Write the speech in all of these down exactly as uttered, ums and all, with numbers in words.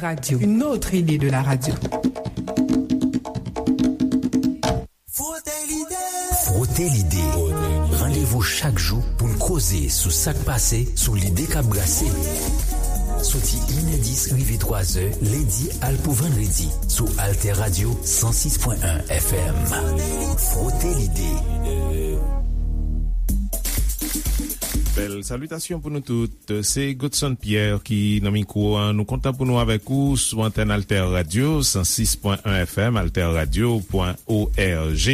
Radio, une autre idée de la radio. Frote l'idée. Frote l'idée. Randevou chak jou pou n koze sou sa k pase, sou lide k ap brase. Soti inè dis rive twazè, lendi al pou vandredi, sou Alter Radio san sis pwen en F M. Frote l'idée. Bèl salitasyon pou nou tout. Se Godson Pierre ki nan mikwo a. Nou kontan pou nou avèk ou sou antèn Alter Radio san sis pwen en F M, alter radio pwen org,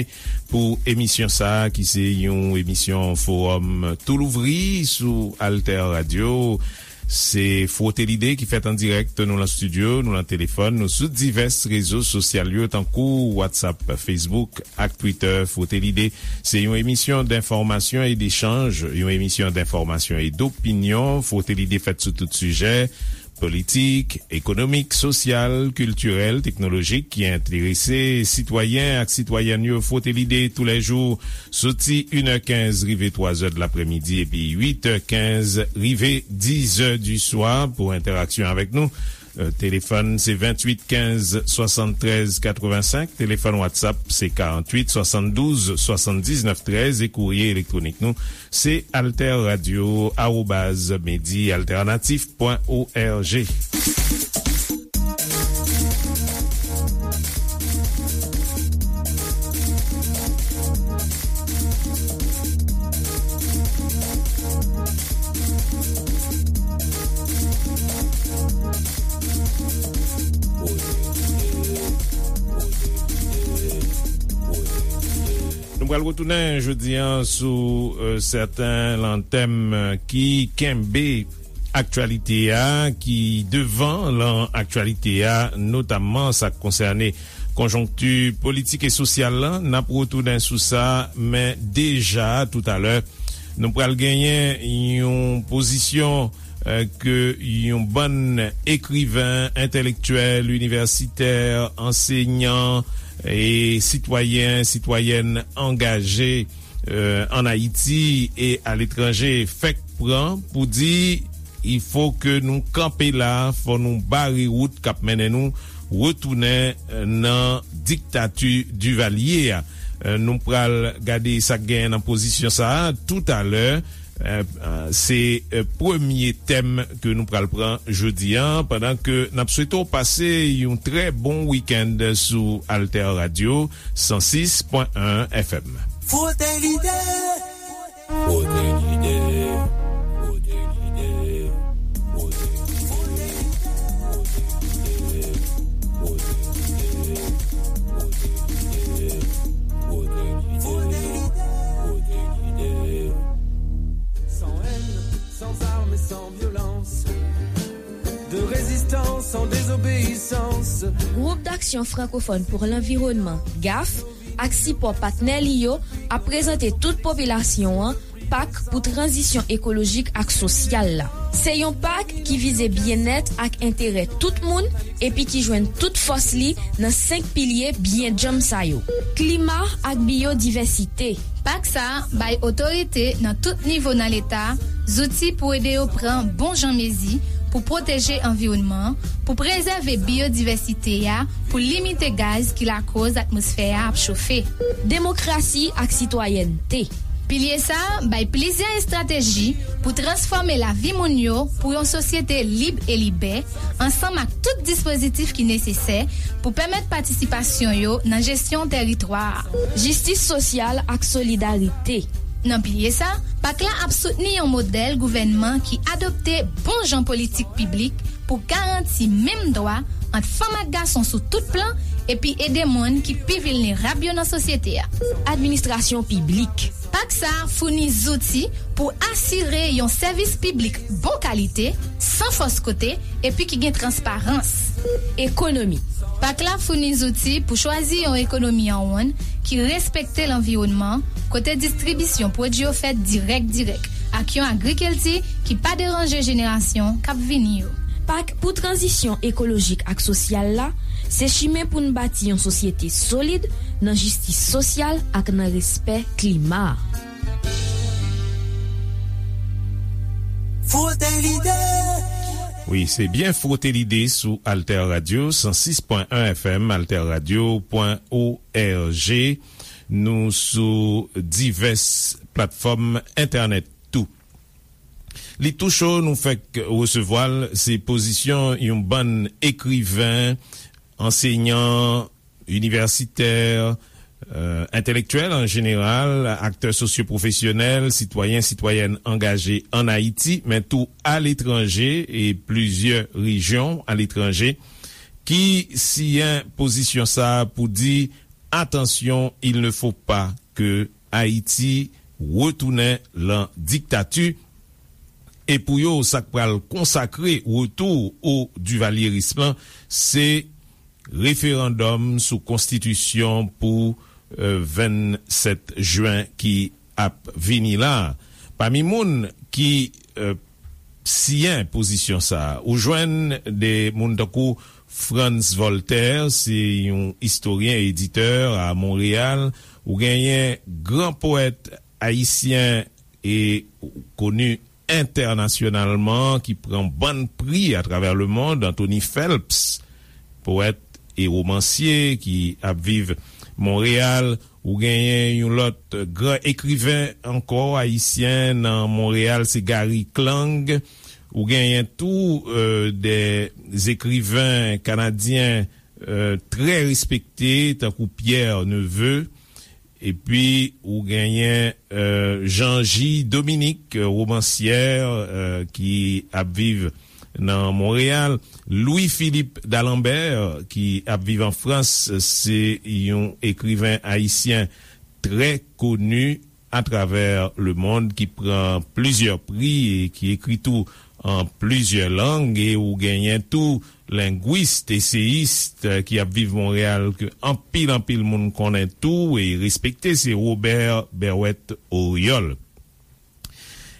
pou emisyon sa a ki se yon emisyon fowòm tou louvri sou Alter Radio. Se Frote Lide ki fèt an dirèk, nou lan estidyo, nou lan telefòn, nou sou divès rezo sosyal yo, tankou WhatsApp, Facebook ak Twitter. Frote Lide, se yon emisyon denfòmasyon e dechanj, yon emisyon denfòmasyon e dopinyon. Frote Lide fèt sou tout sijè politik, ekonomik, sosyal, kiltirèl, teknolojik ki enterese sitwayen ak sitwayèn yo. Frote Lide toulèjou, soti inè kenz rive twazè de laprèmidi epi uitè kenz rive dizè di swa. Pou entèraksyon avèk nou, euh, telefòn se venntuit kenz swasanntrèz katrevensenk, telefòn WhatsApp se karanntuit swasanndouz swasanndiznèf trèz, e kourye elektwonik nou se alter radio arobaz medi alternatif pwen org. Nou pral retounen jodi a sou, euh, sèten lan tèm, euh, ki kenbe aktyalite a, ki devan lan aktyalite a, notamman sa k konsène konjonkti politik e sosyal lan. N ap retounen sou sa, men deja toutalè, nou pral genyen yon pozisyon, eh, ke yon bann ekriven, entèlektyèl, inivèsitè, ansenyan e sitwayen, sitwayèn angaje, eh, ann Ayiti e aletranje fèk pran pou di, il faut que nou kanpe la, fò nou bare wout k ap mennen nou retounen, eh, nan diktati Divalye a. Eh, nou pral gade sa k genyen nan pozisyon sa a toutalè. Eh, eh, se, eh, premye tèm ke nou pral pran jodi a, pandan ke n ap swete w pase yon trè bon wikenn sou Alter Radio san sis pwen en F M. Frote Lide. Frote Lide. Frote Lide. Frote Lide. Frote Lide. Frote Lide. Frote Lide. Frote Lide. Sans haine, sans armes et sans violence. De résistance en désobéissance. Groupe d'Action Francophone pour l'Environnement, gaf, ak sipò patnè li yo ap prezante tout popilasyon an pak pou tranzisyon ekolojik ak sosyal la. Se yon pak ki vize byennèt ak enterè tout moun epi ki jwenn tout fòs li nan senk pilye byen djanm sa yo: klima ak biyodivèsite. Pak sa a bay otorite nan tout nivo nan Leta zouti pou ede yo pran bon jan mezi pou pwoteje anviwònman an, pou prezève biyodivèsite a, pou limite gaz ki lakòz atmosfè a ap chofe. Demokrasi ak sitwayènte. Pilye sa a bay plizyè estrateji pou transfòme lavi moun yo pou yon sosyete lib e libè, ansanm ak tout dispozitif ki nesesè pou pèmèt patisipasyon yo nan jesyon tèritwa a. Jistis sosyal ak solidarite. Nan pilye sa, pak la ap soutni yon modèl gouvènman ki adopte bon jan politik piblik pou garanti menm dwa ant fanm ak gason sou tout plan epi ede moun ki pi vilnerab yo nan sosyete a. Administrasyon piblik. Pak sa a founi zouti pou asire yon sèvis piblik bon kalite, san fòs kote, epi ki gen transparans. Ekonomi. Pak la founi zouti pou chwazi yon ekonomi an wonn ki respekte lanviwònman, kote distribisyon pwodui yo fèt dirèk dirèk, ak yon agrikilti ki pa deranje jenerasyon k ap vini yo. Pak pou tranzisyon ekolojik ak sosyal la se chimen pou n bati yon sosyete solid nan jistis sosyal ak nan respè klima. Frote Lide. Wi, se byen Frote Lide sou Alter Radio, san sis pwen en F M, alterradio pwen org. Nou sou divès platfòm entènèt tou. Li tou cho nou fèk resevwa l, se pozisyon yon bann ekriven, ansenyan, inivèsitè, euh, entèlektyèl an jeneral, aktè sosyopwofesyonèl, sitwayen, sitwayèn angaje an Ayiti, men tou aletranje e plizyè rejyon aletranje, ki siyen pozisyon sa a pou di, attention, il ne faut pas que Haïti retourne lan diktati. E pou yo, sa k pral konsakre retou o divalyeris lan, se referandòm sou konstitisyon pou, euh, vennsèt jen ki ap vini la. Pami moun ki, euh, siyen pozisyon sa a, ou jwenn de moun tankou Frantz Voltaire, se yon istoryen, editè a Monreyal, ou genyen gran powèt ayisyen e koni entènasyonalman ki pran bann pri atravè lemond, Anthony Phelps, powèt e womansye ki ap viv Monreyal. Ou genyen yon lòt gran ekriven ankò ayisyen nan Monreyal, se Gary Klang. Ou genyen tou, euh, de ekriven kanadyen, euh, trè respekte, tankou Pierre Neveu. Epi ou genyen, euh, Jean J Dominique, euh, womansyè, euh, ki ap viv nan Monreyal. Louis Philippe d'Alembert, ki ap viv an Frans, se yon ekriven ayisyen trè koni atravè lemond ki pran plizyè pri e ki ekri tou an plizyè lang, e ou genyen tou lengwis, eseyis, eh, ki ap viv Monreyal, ke anpil, anpil moun konnen tou e respekte, se Robert Berrouët Oriol.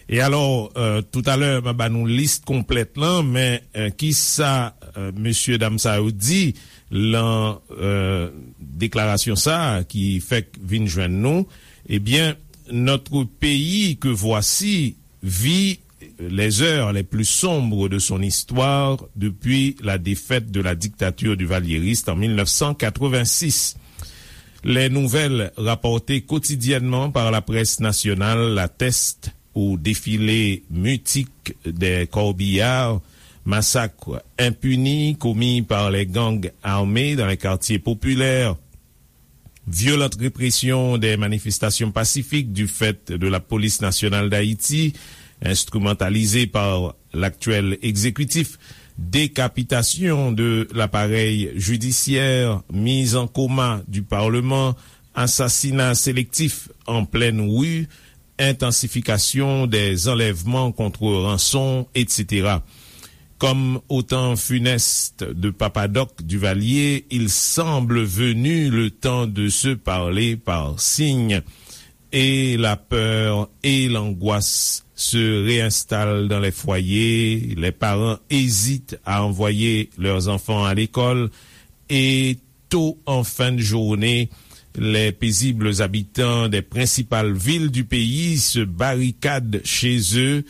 E alò, eh, toutalè, m a ba nou lis konplèt lan, men, eh, kisa, eh, mesye dam sa yo di lan, eh, deklarasyon sa a ki fèk vin jwenn nou? Ebyen, notre pays que voici vit les heures les plus sombres de son histoire depuis la défaite de la dictature duvalieriste en mille neuf cent quatre-vingt-six. Les nouvelles rapportées quotidiennement par la presse nationale l'attestent: au défilé mutique des corbillards, massacres impunis commis par les gangs armés dans les quartiers populaires, violente répression des manifestations pacifiques du fait de la Police nationale d'Haïti, instrumentalisée par l'actuel exécutif, décapitation de l'appareil judiciaire, mise en coma du Parlement, assassinats sélectifs en pleine rue, intensification des enlèvements contre rançon, et cetera. Comme au temps funeste de Papa Doc Duvalier, il semble venu le temps de se parler par signes. Et la peur et l'angoisse se réinstallent dans les foyers. Les parents hésitent à envoyer leurs enfants à l'école. Et tôt en fin de journée, les paisibles habitants des principales villes du pays se barricadent chez eux,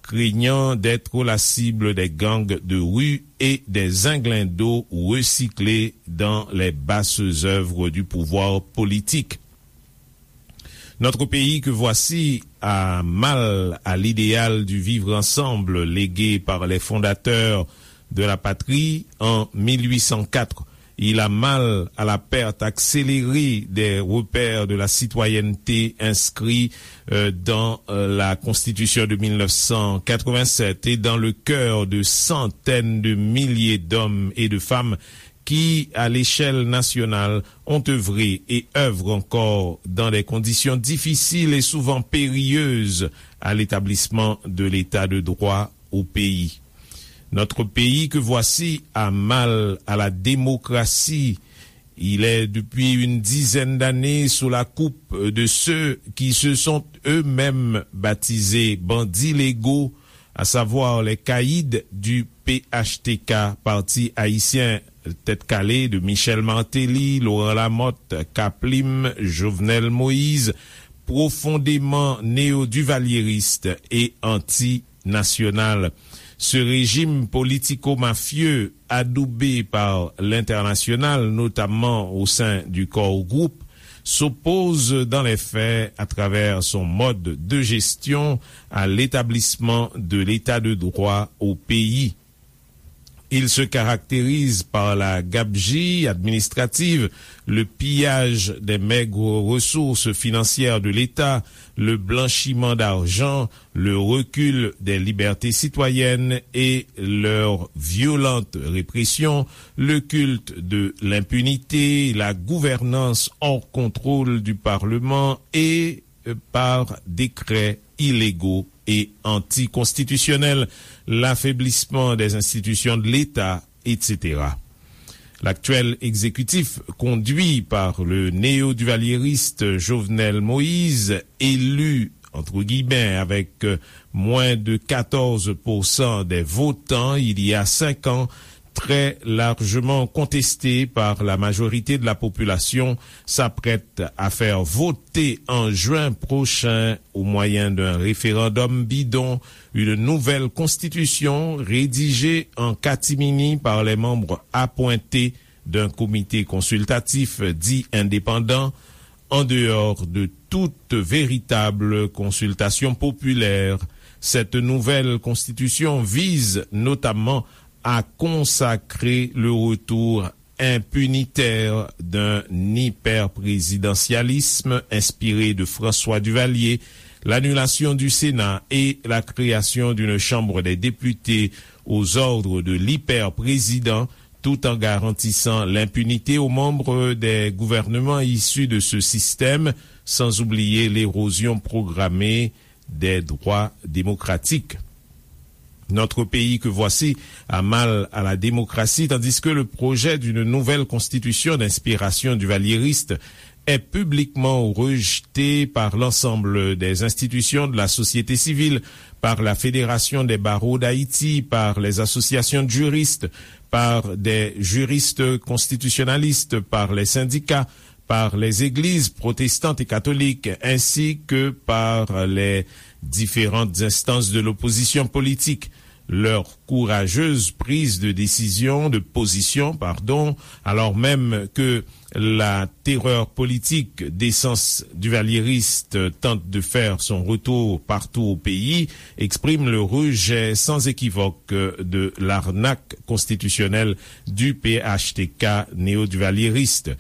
craignant d'être la cible des gangs de rue et des inglindos recyclés dans les basses œuvres du pouvoir politique. Notre pays que voici a mal à l'idéal du vivre ensemble légué par les fondateurs de la patrie en mille huit cent quatre. Il a mal à la perte accélérée des repères de la citoyenneté inscrits, euh, dans, euh, la Constitution de mille neuf cent quatre-vingt-sept et dans le cœur de centaines de milliers d'hommes et de femmes qui, à l'échelle nationale, ont œuvré et œuvrent encore dans des conditions difficiles et souvent périlleuses à l'établissement de l'état de droit au pays. Notre pays que voici a mal à la démocratie. Il est depuis une dizaine d'années sous la coupe de ceux qui se sont eux-mêmes baptisés bandits légaux, à savoir les caïds du P H T K, Parti Haïtien, tête calée de Michel Martelly, Laurent Lamothe, Kaplim, Jovenel Moïse, profondément néo-duvalieristes et anti-nationales. Ce régime politico-mafieux, adoubé par l'international, notamment au sein du Core Group, s'oppose dans les faits, à travers son mode de gestion, à l'établissement de l'état de droit au pays. Il se caractérise par la gabegie administrative, le pillage des maigres ressources financières de l'État, le blanchiment d'argent, le recul des libertés citoyennes et leur violente répression, le culte de l'impunité, la gouvernance hors contrôle du Parlement et, euh, par décrets illégaux et anticonstitutionnels, l'affaiblissement des institutions de l'État, et cetera. L'actuel exécutif, conduit par le néo-duvalieriste Jovenel Moïse, élu, entre guillemets, avec, euh, moins de quatorze pour cent des votants il y a cinq ans, très largement contesté par la majorité de la population, s'apprête à faire voter en juin prochain, au moyen d'un référendum bidon, une nouvelle constitution rédigée en catimini par les membres appointés d'un comité consultatif dit indépendant, en dehors de toute véritable consultation populaire. Cette nouvelle constitution vise notamment à consacrer le retour impunitaire d'un hyperprésidentialisme inspiré de François Duvalier, l'annulation du Sénat et la création d'une Chambre des députés aux ordres de l'hyperprésident, tout en garantissant l'impunité aux membres des gouvernements issus de ce système, sans oublier l'érosion programmée des droits démocratiques. Notre pays que voici a mal à la démocratie, tandis que le projet d'une nouvelle constitution d'inspiration duvalieriste est publiquement rejeté par l'ensemble des institutions de la société civile, par la Fédération des barreaux d'Haïti, par les associations de juristes, par des juristes constitutionnalistes, par les syndicats, par les églises protestantes et catholiques, ainsi que par les différentes instances de l'opposition politique. Leur courageuse prise de décision, de position, pardon, alors même que la terreur politique d'essence duvalieriste tente de faire son retour partout au pays, exprime le rejet sans équivoque de l'arnaque constitutionnelle du P H T K néo-duvalieriste.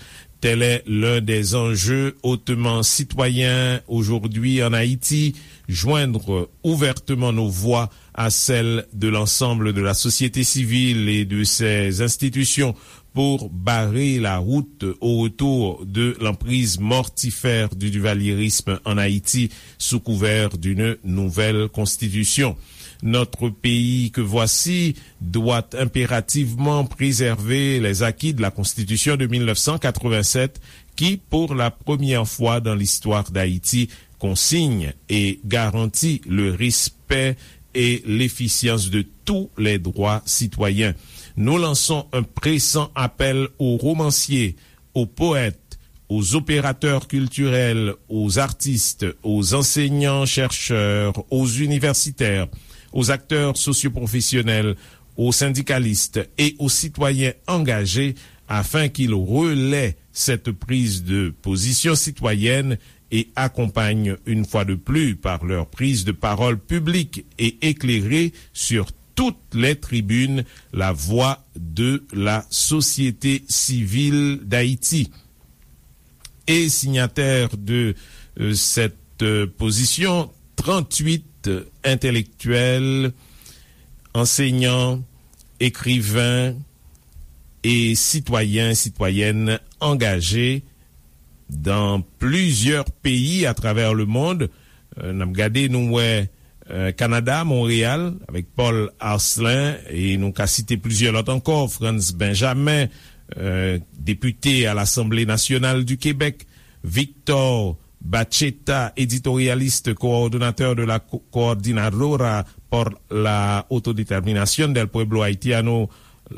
Tel est l'un des enjeux hautement citoyens aujourd'hui en Haïti, joindre ouvertement nos voix à celles de l'ensemble de la société civile et de ses institutions pour barrer la route au retour de l'emprise mortifère du duvalierisme en Haïti sous couvert d'une nouvelle constitution. Notre pays que voici doit impérativement préserver les acquis de la Constitution de mille neuf cent quatre-vingt-sept qui, pour la première fois dans l'histoire d'Haïti, consigne et garantit le respect et l'efficience de tous les droits citoyens. Nous lançons un pressant appel aux romanciers, aux poètes, aux opérateurs culturels, aux artistes, aux enseignants-chercheurs, aux universitaires, aux acteurs socioprofessionnels, aux syndicalistes et aux citoyens engagés afin qu'ils relaient cette prise de position citoyenne et accompagnent une fois de plus par leur prise de parole publique et éclairée sur toutes les tribunes la voix de la société civile d'Haïti. Et signataires de, euh, cette, euh, position, trente-huit intellectuels, enseignants, écrivains et citoyens, citoyennes engagés dans plusieurs pays à travers le monde. Euh, n ap gade, nou wè, euh, Kanada, Monreyal, avèk Paul Arcelin, e nou ka site plizyè lòt ankò, Frantz Benjamin, euh, député à l'Assemblée nationale du Québec, Victor Bacheta, éditorialiste, coordonnateur de la Co- Coordinadora por la Autodeterminación del Pueblo Haitiano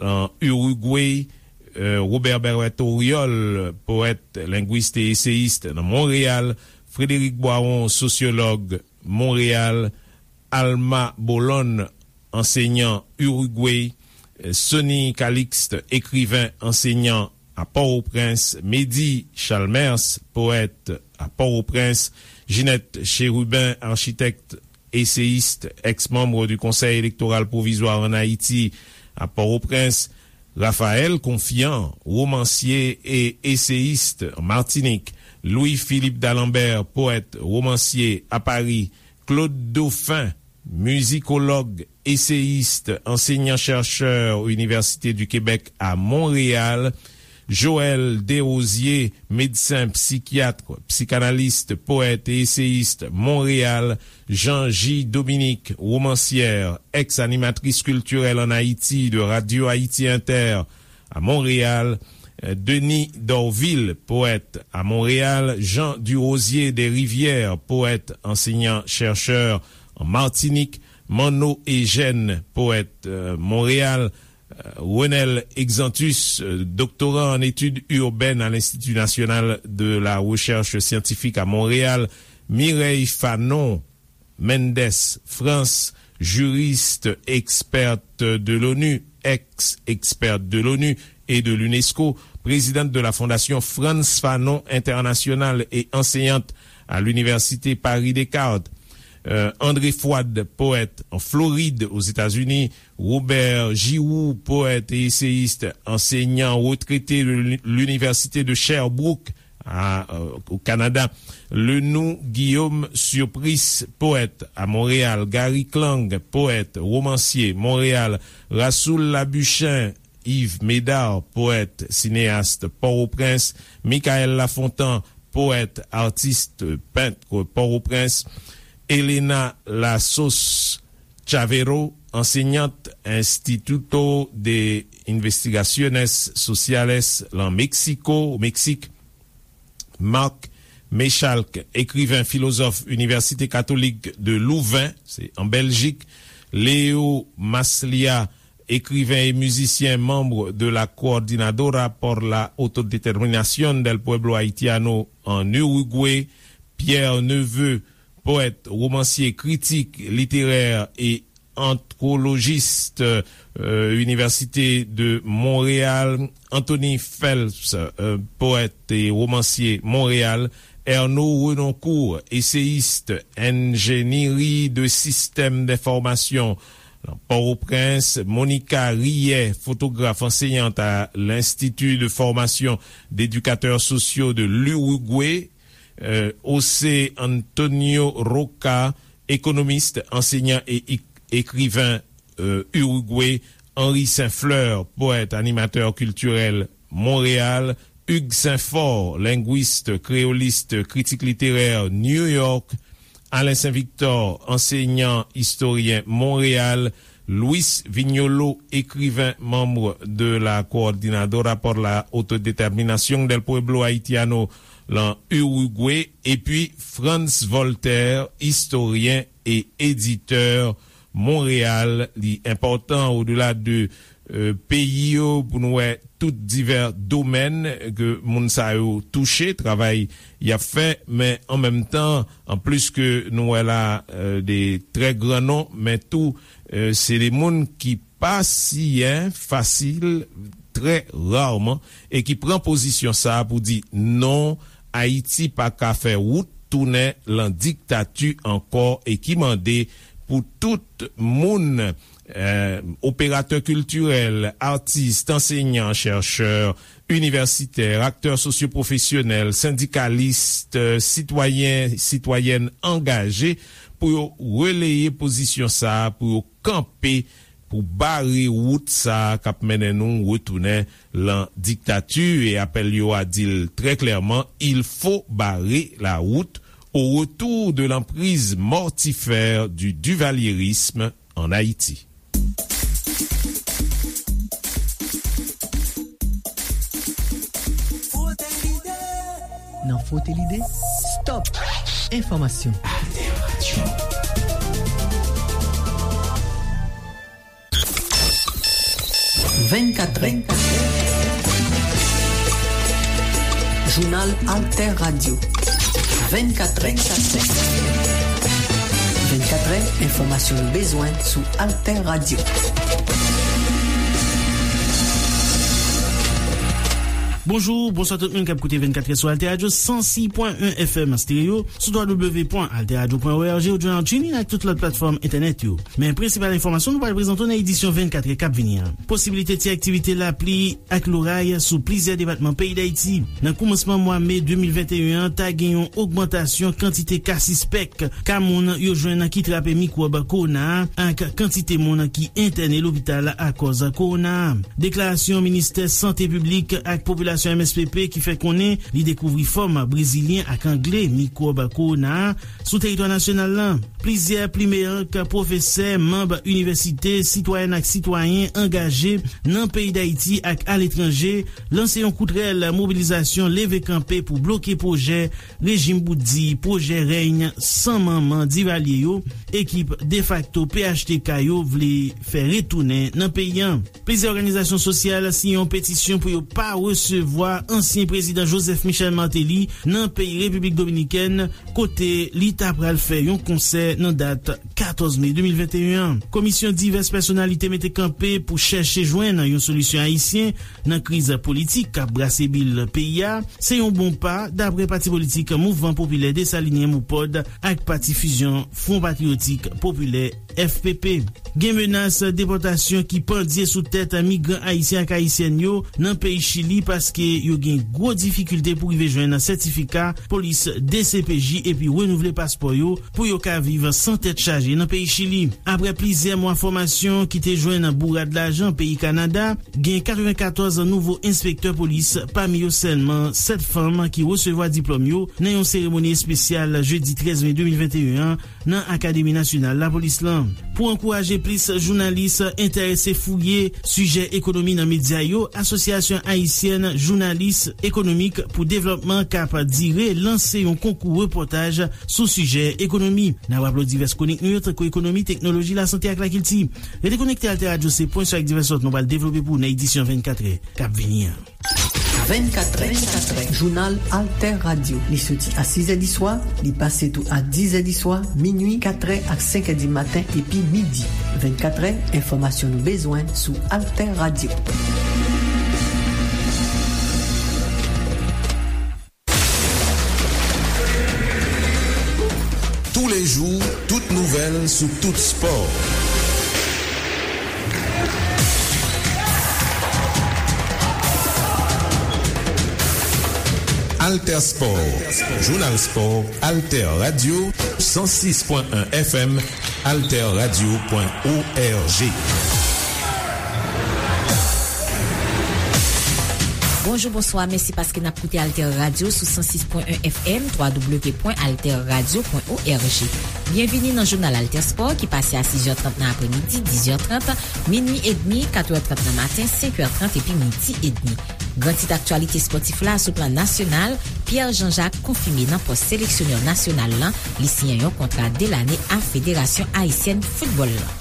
en Uruguay, euh, Robert Berrouët Oriol, poète, linguiste et essayiste nan Monreyal, Frédéric Boiron, sociologue, Monreyal, Alma Bolon, ansenyan Irigwe, Sonny Calixte, ekriven, ansenyan a Pòtoprens, Medi Chalmers, powèt a Pòtoprens, Ginette Chérubin, architecte, essayiste, ex-membre du Conseil électoral provisoire en Haïti à Port-au-Prince, Raphaël Confiant, romancier et essayiste en Martinique, Louis-Philippe d'Alembert, poète, romancier à Paris, Claude Dauphin, mizikòlòg, eseyis, ansenyan-chèchè Université du Québec à Montréal, Joël Desrosiers, médecin psychiatre, psychanalyste, poète et essayiste, Montréal, Jean J. Dominique, romancière, ex-animatrice culturelle en Haïti de Radio Haïti Inter à Montréal, Denis Dorvil, poète à Montréal, Jean Durosier des Rivières, poète, enseignant-chercheur en Martinique, Manno Eugène, poète, euh, Montréal, euh, Renel Exantus, euh, doctorant en études urbaines à l'Institut national de la recherche scientifique à Montréal, Mireille Fanon, Mendes France, juriste, experte de l'ONU, ex-experte de l'ONU et de l'UNESCO, présidente de la Fondation Frantz Fanon International et enseignante à l'Université Paris Descartes. Euh, André Fouad, poète en Floride, aux États-Unis, Robert Giroux, poète et essayiste, enseignant retraité de l'Uni-, l'Université de Sherbrooke, à, euh, au Canada. Lenou Guillaume Surpris, poète à Montréal. Gary Klang, poète, romancier, Montréal. Rasoul Labuchin, Yves Médard, poète, cinéaste, Port-au-Prince. Michael Lafontant, poète, artiste, peintre, Port-au-Prince. Elena Lassos Chavero, enseignante, Instituto de Investigaciones Sociales lan Mexico, Meksik. Marc Méchalk, écrivain, philosophe, Université catholique de Louvain, c'est en Belgique. Leo Maslia, écrivain et musicien, membre de la Coordinadora por la Autodeterminación del Pueblo Haitiano en Uruguay. Pierre Neveu, poète, romancier, critique littéraire et anthologiste, euh, Université de Montréal, Anthony Phelps, euh, poète et romancier, Montréal, Ernaud Renoncourt, essayiste, ingénierie de système d'information, Port-au-Prince, Monica Rillet, photographe, enseignante à l'Institut de formation d'éducateurs sociaux de l'Uruguay, euh, José Antonio Roca, économiste, enseignant et éc-, écrivain, euh, Uruguay, Henri Saint-Fleur, poète, animateur culturel, Montréal, Hugues Saint-Fort, linguiste, créoliste, critique littéraire, New York, Alain Saint-Victor, enseignant, historien, Montréal, Luis Viñolo, écrivain, membre de la Coordinadora por la Autodeterminación del Pueblo Haitiano, lan Uruguay, epi Frantz Voltaire, historien et éditeur, Montréal. Li enpòtan, odela de, euh, peyi yo, pou nou wè tout divè domèn ke moun sa yo touche, travay y ap fè, men an menm tan, an plis ke nou wè la, euh, de trè gran non, men tou, euh, se de moun ki pa siyen fasil, trè raman, e ki pran pozisyon sa a pou di non, Ayiti pa ka fè wout tounen lan diktati ankò, e ki mande pou tout moun, euh, operatè kiltirèl, atis, ansenyan, chèchè, inivèsitè, aktè sosyopwofesyonèl, sendikalis, sitwayen, sitwayèn angaje pou yo releye pozisyon sa a, pou yo kanpe, pou bare wout sa a k ap mennen nou retounen lan diktati. E apèl yo a di l trè klèman, il faut barrer la route au retour de l'emprise mortifère du duvalierisme en Haïti. Nan Frote Lide, stop enfòmasyon. Vennkatrè. Jounal Alter Radio. Vennkatrè. Vennkatrè, enfòmasyon nou bezwen sou Alter Radio. Bonjou, bonswa tout moun k ap koute vennkatrè sou Alter Radio san sis pwen en F M stereo, sou w w w pwen alter radio pwen o r g ou jwenn an TuneIn ak tout lòt platfòm entènèt yo. Men prensipal enfòmasyon nou pral prezante w nan edisyon vennkatrè k ap vini an. Posiblite ti aktivite lapli ak loray sou plizyè depatman peyi Dayiti. Nan koumansman mwa me de mil venteyen an, ta gen yon ogmantasyon kantite ka sispèk, ka moun yo jwenn ki trape mikwòb kowona a, ak kantite moun ki entène lopital akòz kowona a. Deklarasyon Ministè Sante Piblik ak Popilasyon M S P P ki fè konnen li dekouvri fòm brezilyen ak angle mikwòb kowona a sou teritwa nasyonal la. Plizyè plimeyank, pwofesè, manm inivèsite, sitwayèn ak sitwayen angaje nan peyi Dayiti ak aletranje lanse yon kout rèl mobilizasyon leve kanpe pou bloke pwojè rejim bout di, pwojè rèy san manman Divalye yo, ekip defakto P H T K yo vle fè retounen nan peyi a. Plizyè òganizasyon sosyal siyen yon petisyon pou yo pa resevwa ansyen prezidan Joseph Michel Martelly nan peyi Repiblik Dominikèn, kote li ta pral fè yon konsè nan dat katòz me de mil venteyen an. Komisyon divès pèsonalite mete kanpe pou chèche jwenn yon solisyon ayisyen nan kriz politik k ap brase bil peyi a, se yon bon pa, dapre pati politik Mouvman Popilè Desalinyen, MOPOD, ak pati fizyon Fwon Patriyotik Popilè, F P P. Gen menas depòtasyon ki pandye sou tèt migran ayisyen ak ayisyèn yo nan peyi Chili, paske yo gen gwo difikilte pou rive jwenn sètifika polis D C P J epi renouvle paspò yo pou yo ka viv san tèt chaje nan peyi Chili. Apre plizyè mwa fòmasyon ki te jwenn bourad lajan peyi Kanada, gen katrevenkatòz nouvo enspektè polis, pami yo sèlman sèt fanm ki resevwa diplòm yo nan yon seremoni espesyal jedi trèz me de mil venteyen an nan Akademi Nasyonal Lapolis lan. Pou ankouraje plis jounalis enterese fouye sijè ekonomi nan medya yo, Asosyasyon Ayisyèn Jounalis Ekonomik pou Devlòpman, k ap dire, lanse yon konkou repòtaj sou sijè ekonomi. N ap raple w divès kwonik nou yo, tankou ekonomi, teknoloji, lasante ak lakilti. Rete konekte Alter Radio, se pwen sou ak divès lòt nou pral devlope pou w nan edisyon vennkatrè k ap vini an. Vennkatrè, jounal Alter Radio. Li soti a sis è di swa, li pase tou a diz è di swa, minui, katrè ak senk è di maten epi midi. Vennkatrè, enfòmasyon nou bezwen sou Alter Radio. Tous les jours, toute nouvelle sous tout sport. Alter Sport, Jounal Spò, Alter Radio, san sis pwen en F M, alter radio pwen org. Bonjou, bonswa, mèsi paske n ap koute Alter Radio sou san sis pwen en F M, w w w pwen alter radio pwen org. Byenvini nan jounal Alter Sport ki pase a sis è trant nan apremidi, diz è trant, minui edmi, kat è trant nan maten, senk è trant epi midi edmi. Gran tit aktyalite spòtif la sou plan nasyonal, Pierre Jean-Jacques konfime nan pòs seleksyonè nasyonal lan, li siyen yon kontra de lane a Federasyon Ayisyèn Foutbòl lan.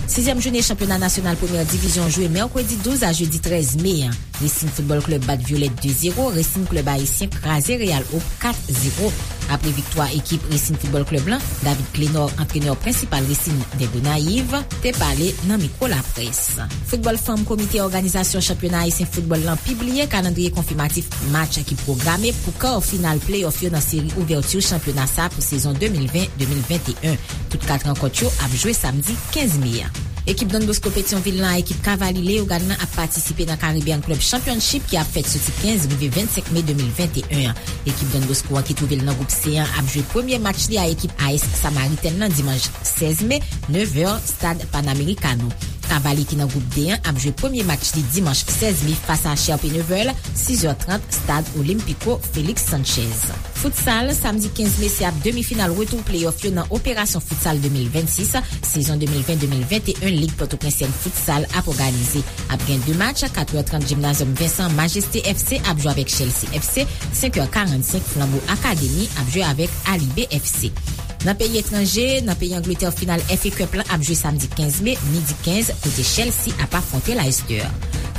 Sizyèm jounen chanpyona nasyonal premyè divizyon jwe mèkredi douz a jedi trèz me an. Racing Football Club bat Violette de zéro, Racing Club Ayisyen kraze Real Hope kat zéro. Apre viktwa ekip Racing Football Club lan, David Clénor, antrenè prensipal Racing de Gonayiv, te pale nan mikwo laprès. Foutbòl fanm, komite òganizasyon chanpyona ayisyen foutbòl lan pibliye kalandriye konfimatif match ki pwograme pou kar final pleyòf yo nan seri ouvèti chanpyona sa pou sezon de mil ven de mil venteyen. Tout kat rankont yo ap jwe samdi kenz me a. Ekip Don Bosco Petyonvil lan ak ekip Cavalry Leyogàn lan ap patisipe nan Caribbean Club Championship ki ap fèt soti kenz rive vennsenk me de mil venteyen an. Ekip Don Bosco an ki twouve l nan gwoup C an ap jwe premye match li a ekip A S Samaritèn lan dimanch sèz me, nèf è, Stad Panamericano. Cavalry ki nan gwoup D an ap jwe premye match li dimanch sèz me fas a Sherpé Neveu, sis è trant, Stad Olímpico Félix Sánchez. Futsal, samdi kenz me, se ap demi final retou pleyòf yo nan Operasyon Futsal de mil vennsis, sezon de mil ven de mil venteyen, Lig Pòtoprensèn Futsal ap òganize. Ap gen de match, kat è trant Gymnasium Vincent, Majesté F C ap jwe avèk Chelsea F C, senk è karannsenk Flambeau Academy ap jwe avèk Alibé F C. Nan peyi etranje, nan peyi Angletè, final F A Cup lan ap jwe samdi kenz me, midi kenz, kote Chelsea ap afwonte Leicester.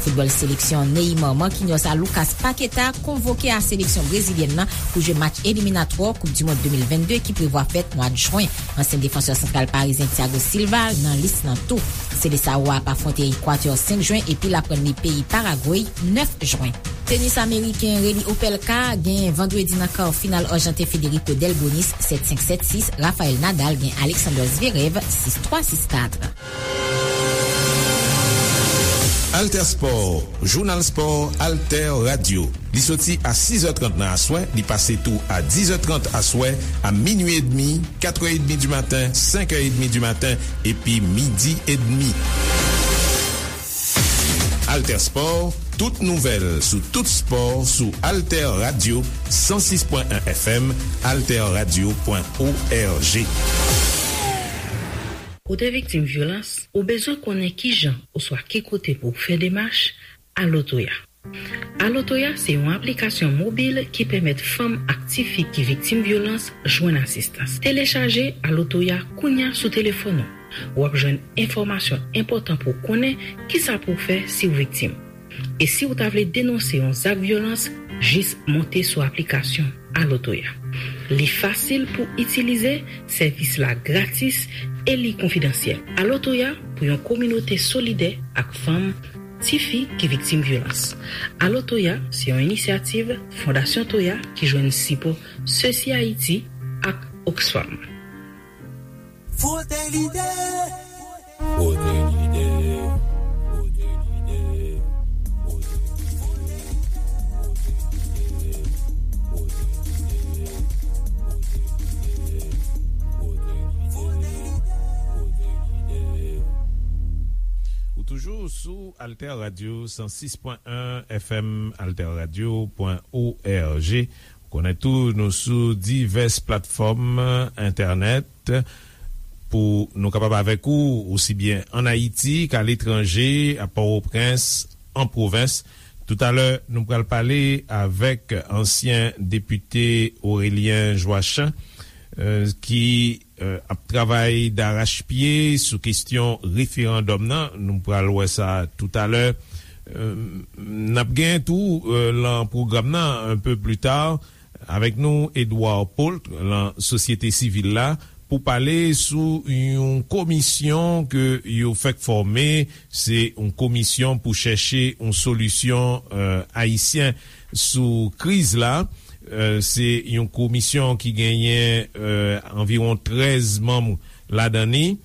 Foutbòl, seleksyon Neymar Marquinhos a Lucas Paquetá konvoke a seleksyon brezilyèn nan pou jwe match eliminatwa Koup di Mond de mil vennde ki prevwa fèt mwa jwen. Ansyen defansè santral parizyen Thiago Silva nan lis nan tou. Seleção a ap afwonte Ekwatè senk jwen epi l ap rann li peyi Paragwe nèf jwen. Tenis ameriken Reilly Opelka gen vandredi nan kar final Arjanten Federico Delbonis sèt senk sèt sis, Rafael Nadal gen Alexander Zverev sis twa sis kat. Alter Sport, jounal spò Alter Radio. Li soti a sis è trant nan aswè, li pase tou a dis è trant aswè, a minui edmi, kat è edmi di maten, senk è edmi di maten, epi midi edmi. Alter Sport, tout nouvèl sou tout spò sou Alter Radio san sis pwen en F M, alterradio pwen org. Ou te viktim vyolans? Ou bezwen konnen ki jan oswa ki kote pou w fè demach? Alo Toya. Alo Toya se yon aplikasyon mobil ki pèmèt fanm ak tifi ki viktim vyolans jwenn asistans. Telechaje Alo Toya kounye a sou telefòn ou. W ap jwenn enfòmasyon enpòtan pou w konnen kisa pou w fè si w viktim. E si w ta vle denonse yon zak vyolans, jis monte sou aplikasyon Alo Toya. Li fasil pou itilize, sèvis la gratis e li konfidansyèl. Alo Toya pou yon kominote solidè ak fanm, tifi ki viktim vyolans. Alo Toya se yon inisyativ Fondasyon Toya ki jwenn sipò Sesi Ayiti ak Oxfam. Frote l'idée. Frote l'idée. Frote l'idée. Frote l'idée. Ou toujou sou Alter Radio san sis pwen en F M, alterradio pwen org. Ou konnen tou, nou sou divès platfòm entènèt pou nou kapab avèk ou, osi byen ann Ayiti k'aletranje, a Pòtoprens, an pwovens. Toutalè, nou pral pale avèk ansyen depite Aurélien Joachim, eh, ki, eh, ap travay darachpye sou kesyon referandòm nan. Nou pral wè sa toutalè. Eh, n ap gen tou, eh, lan pwogram nan, un peu plus tard, avèk nou, Edouard Paul, lan sosyete sivil la, pou pale sou yon komisyon ke yo fèk fòme. Se yon komisyon pou chèche yon solisyon, eh, ayisyen sou kriz la. Eh, se yon komisyon ki genyen, eh, anviwon trèz manm ladan li.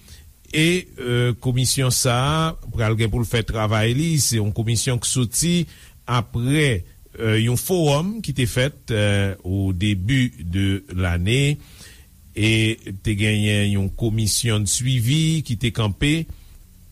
E, eh, komisyon sa a pral gen pou l fè travay li. Se yon komisyon ki soti apre, eh, yon fowòm ki te fèt, eh, au début de l'année. E te genyen yon komisyon de suivi ki te kanpe.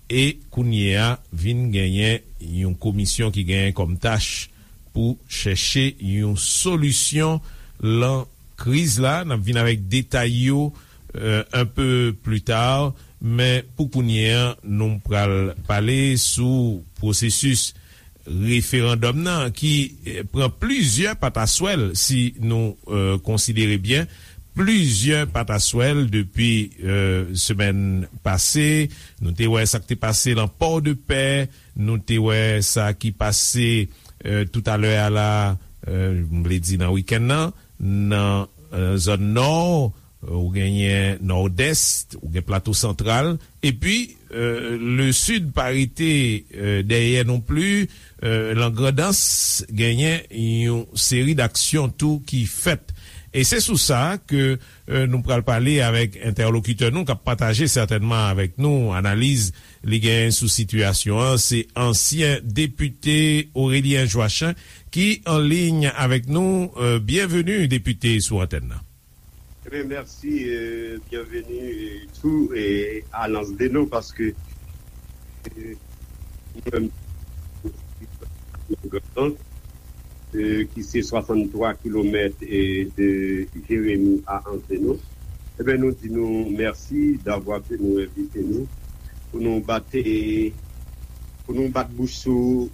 E kounye a, vin genyen yon komisyon ki genyen kòm tach pou chèche yon solisyon lan kriz la. N ap vin avèk detay yo, eh, un peu plus tard, men pou kounye a, nou pral pale sou pwosesis referandòm nan ki, eh, pran plizyè pataswèl, si nou, eh, konsidere byen, plizyè pataswèl depi, eh, semèn pase. Nou te wè sa k te pase lan Pòdepè, nou te wè sa ki pase, eh, toutalè a la, eh, m vle di nan wikenn nan, nan, eh, zòn Nò, eh, ou genyen Nòdès, ou gen Plato Santral, epi, eh, Lesid pa rete, eh, dèyè non pli, eh, lan Grandans genyen yon seri d'aksyon tou ki fèt. E se sou sa ke, eh, nou pral pale avèk entèlokitè nou k ap pataje sètènman avèk nou analiz li genyen sou sitiyasyon an. Se ansyen depite Aurélien Joachim ki an liy avèk nou. Eh, byenveni, depite, sou antèn nan. Ebyen, mèsi, eh, byenveni, eh, tou, eh, a Anse des Naux, paske, eh, mwen menm, eh, ki se swasanntwa kilomèt, eh, de Jérémie à Anse des Naux. Ebyen, nou di nou mèsi davwa ke nou envite nou pou nou bat, eh, pou nou bat bouch sou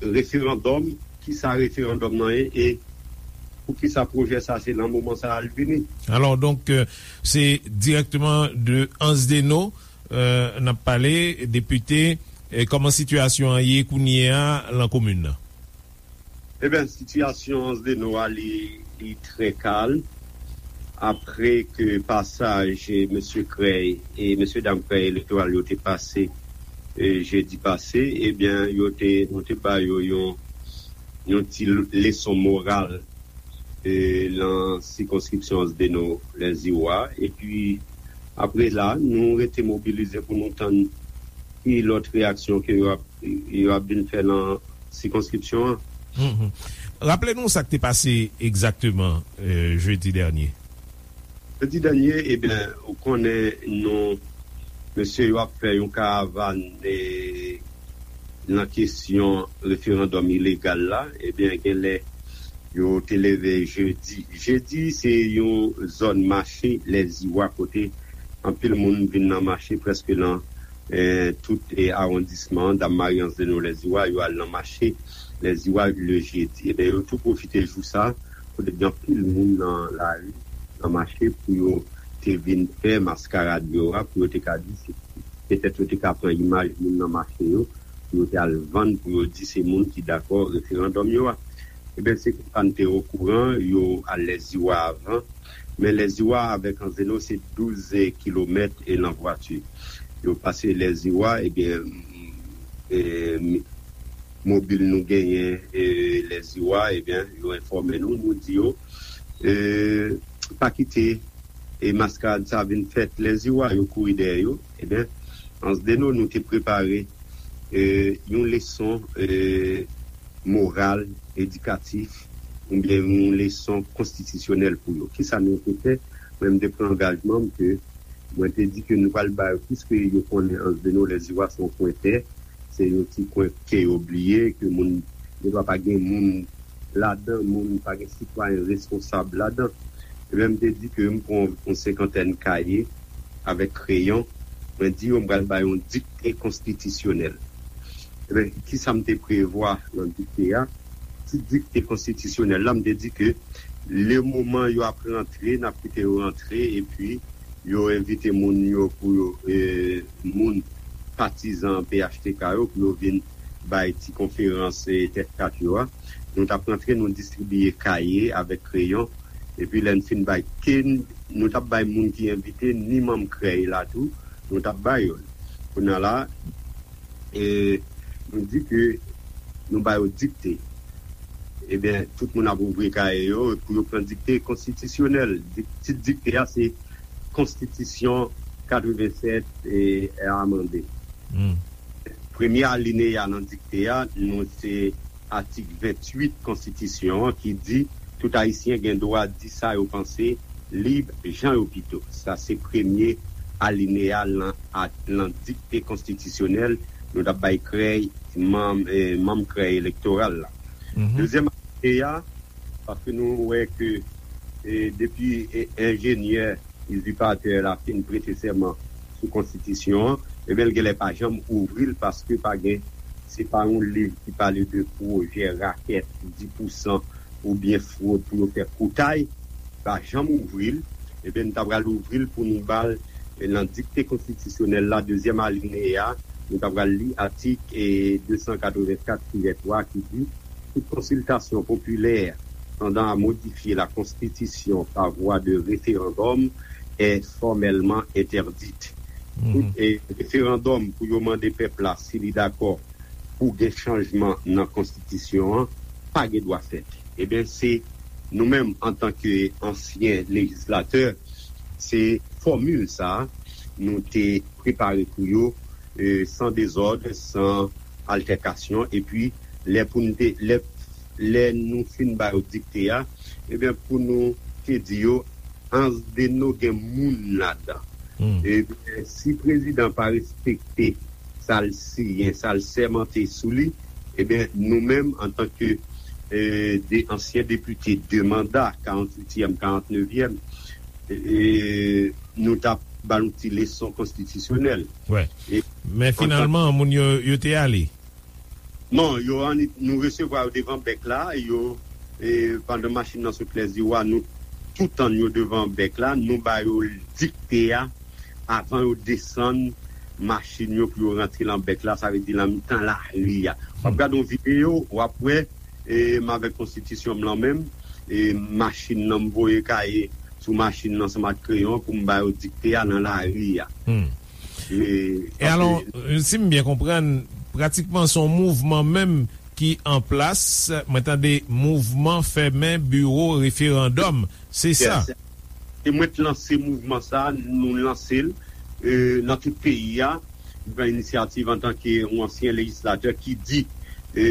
referandòm, kisa referandòm nan ye e poukisa pwojè sa se nan moman sa a l vini. Alò, donk, euh, se dirèkteman de Anse des Naux, euh, n ap pale, depite, E kòman sitiyasyon an ye kounye a lan komin nan? Ebyen, sitiyasyon Anse des Naux a, li, li trè kalm. Apre ke pasaj, e, mesye Krèy e mesye dam Krèy elektoral yo te pase, e, jedi pase, ebyen, yo te, nou te ba yo yon, yon ti leson moral, e, lan sikonskripsyon Anse des Naux Lèziwa. Epi, apre la, nou rete mobilize pou nou tann ki lòt reyaksyon ke yo ap, yo ap vin fè lan sikonskripsyon an. Mhm. Raple nou sa k te pase egzakteman, e, jedi dènye. Jedi dènye, ebyen, ou konnen nou, mesye yo ap fè yon karavàn, e, lan kesyon referandòm ilegal la, ebyen, genlè yo te leve jedi. Jedi, se yon zòn mache Lèziwa kote anpil moun vin nan mache prèske lan, e, tout, e, awondisman an, Dam Mari, Anse des Naux Lèziwa, yo al nan mache Lèziwa le jedi. Ebyen, yo tou pwofite jou sa, kote gen anpil moun nan lari, nan mache, pou yo te vin fè maskarad yo a, pou yo te ka di se, petèt yo te ka pran imaj moun nan mache yo, pou yo te al vann, pou yo di se moun ki dakò referandòm yo a. Ebyen, se konsa n te okouran, yo al Lèziwa avan, men Lèziwa avèk Anse des Naux se douz kilomèt e lan vwati. Yo pase Lèziwa, ebyen, e, mobil nou genyen, e, Lèziwa, ebyen, yo enfòme nou, nou di yo, e, pa kite, e, maskarad sa vin fèt Lèziwa, yo kouri dèyè yo. Ebyen, Anse des Naux, nou te prepare, e, yon leson, e, moral, edikatif, oubyen yon leson konstitisyonèl pou yo. Kisa nou te fè? Mwen, m te pran angajman m ke mwen te di ke nou pral ba yo, piske yo konnen Anse des Naux Lèziwa se yon kwen tè, se yon ti kwen ke yo bliye, ke moun, yo pa gen moun ladan, moun pa gen sitwayen responsab ladan. Ebyen, m te di ke m pran yon senkantèn kaye avèk kreyon, mwen di yo m pral ba yo yon dikte konstitisyonèl. Ebyen, kisa m te prevwa lan dikte a? Ti dikte konstitisyonèl la, m te di ke le moman yo ap rantre, n ap kite yo rantre, epi yo envite moun yo pou yo, e, moun patizan P H T K yo, pou yo vin bay ti konferans, e, tèt kat yo a. Nou t ap rantre, nou distribiye kaye avèk kreyon. Epi lè n fin bay, ke n, nou t ap bay moun ki envite, ni manm krèy la tou, nou t ap bay yo. Kounye a la, e, nou di ke nou ba yo dikte. Ebyen, tout moun ap ouvri kaye yo pou yo pran dikte konstitisyonèl. Dik-, tit dikte a se Konstitisyon katrevennsèt e amande. Hmm. Premye alineya nan dikte a, nou se atik venntuit konstitisyon an ki di tout Ayisyen gen dwa di sa yo panse lib jan yo pito. Sa se premye alineya lan, a, lan dikte konstitisyonèl nou t ap bay krèy manm, eh, manm krèy elektoral la. Mhm. Dezyèm alineya, paske nou wè ke, eh, depi, eh, enjenyè izipatè la fin prete sèman sou konstitisyon an, ebyen, l genlè pa janm ouvri l paske pa gen, se pa yon liv ki pale de pwojè rakèt, dis pousan oubyen fwod pou yo fè koutay, pa janm ouvri l. Ebyen, n ta pral ouvri l pou nou ba l, eh, nan dikte konstitisyonèl la, dezyèm alineya, nou ta pral li atik, eh, de san katrevenkat tirè twa ki di, tout konsiltasyon popilè tendant à modifier la Constitution par voie de référendum est formellement interdite. Mhm. Tout, eh, referandòm pou yo mande pèp la si li dakò pou gen chanjman nan konstitisyon an, pa gen dwa fèt. Ebyen, se nou menm, antanke ansyen lejislatè, se fòmil sa a nou te prepare pou yo, eh, san dezòd, san altèkasyon, epi lè pou n te, lè, lè nou fin ba yo dikte a, ebyen, pou nou te di yo, Anse des Naux gen moun ladan. Hmm. Ebyen, si prezidan pa respekte sa l siyen, sa l sèmante sou li, ebyen, nou menm, antanke, eh, de ansyen depite de manda, karanntuityèm, karantnevyèm, eh, nou t ap ba l yon ti leson konstitisyonèl. Wè. E Men antan finalman, moun yo, yo te ale. Non, yo annik, nou resevwa yo devan bèk la, yo, eh, pandan machin nan sot Lèziwa, nou tou tann yo devan bèk la, nou ba yo dikte a, avan yo desann, machin yo pou yo rantre lan bèk la, sa vle di lan mitan lari a. W ap gade yon videyo, w ap wè, e, m avèk konstitisyon m lan menm, e, machin nan m voye kaye sou machin nan ansanm ak kreyon pou m ba yo dikte a nan lari a. E, E alò, e, si m byen konprann, pratikman se yon mouvman menm ki an plas, mwen tande mouvman fèmen biwo referandòm, se sa? Yes. E mwen t lanse mouvman sa, nou lanse l, e, nan tout peyi a. M pran inisyativ antanke yon ansyen lejislatè ki di, e,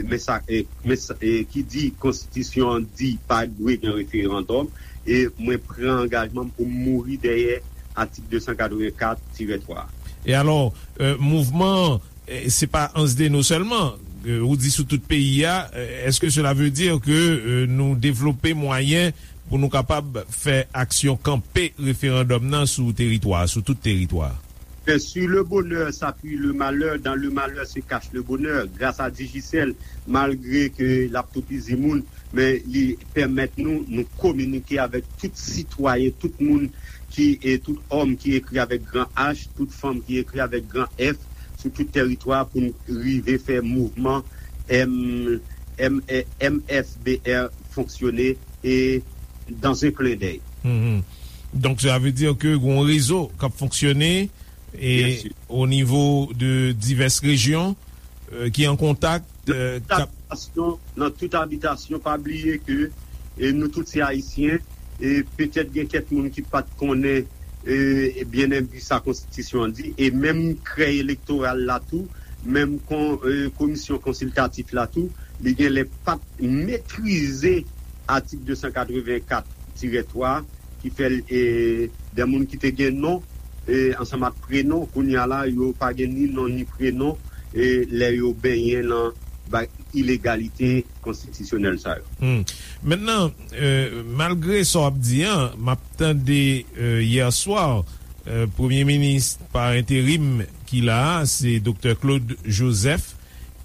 men sa, e, men sa, e, ki di konstitisyon an di pa dwe gen referandòm, e mwen pran angajman m pou m mouri dèyè atik de san katrevenkat tirè twa. E alò, e, mouvman an, e, se pa Anse des Naux sèlman, e, ou di sou tout peyi a, e, èske cela veut dire que, e, nou devlope mwayen pou nou kapab fè aksyon kanpe referandòm nan sou teritwa, sou tout teritwa? Fè sur le bonheur s'appuie le malheur, dans le malheur se cache le bonheur. Gras a Digicel, malgre ke l ap toupizi moun, men li pèmèt nou, nou kominike avèk tout sitwayen, tout moun ki, e tout òm ki ekri avèk gran H, tout fanm ki ekri avèk gran F, sou tout teritwa pou n rive fè mouvman M, M, M F B R fonksyone e dans un clin d'œil. Mhm. Donk, sa vle di ke gon rezo k ap fonksyone e o nivo de divès rejyon, e, ki an kontak, e, k ap abitasyon, nan tout abitasyon, pa bliye ke, e, nou tout se Ayisyen, e petèt gen kèk moun ki pa t konnen, e, e byen enbi sa konstitisyon an di, e menm krèy elektoral la tou, menm kon, e, komisyon konsiltatif la tou, li genlè pa t metrize atik de san katrevenkat tirè twa, ki fè l, e, de moun ki te gen non, e, ansanm ak prenon, kounye a la, yo pa gen ni non ni prenon, e, lè yo benyen nan ba-, ilegalite konstitisyonèl sa yo. Hmm. Mentnan, e, malgre sa w ap di an, m ap tande, e, yè swa, e, premye minis pa enterim ki la a, se Doktè Claude Joseph,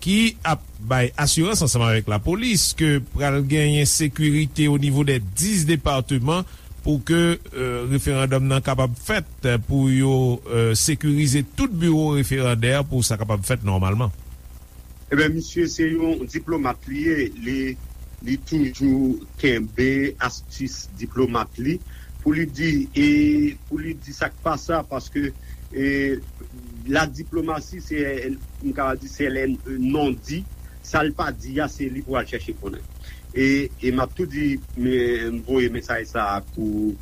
ki ap bay asirans ansanm avèk lapolis ke pral genyen sekirite o nivo dè dis depatman pou ke, e, referandòm nan kapab fèt, e, pou yo, e, sekirize tout biwo referandè pou sa kapab fèt nòmalman. Ebyen, misye se yon diplomat li ye, li, li toujou kenbe astis diplomat li pou li di, e pou li di sa k pa sa, paske, e, la diplomasi, se, m ka di, se lè non di, sa l pa di a, se li pou al chèche konnen. E, e m ap tou di, m, m voye mesaj sa a pou,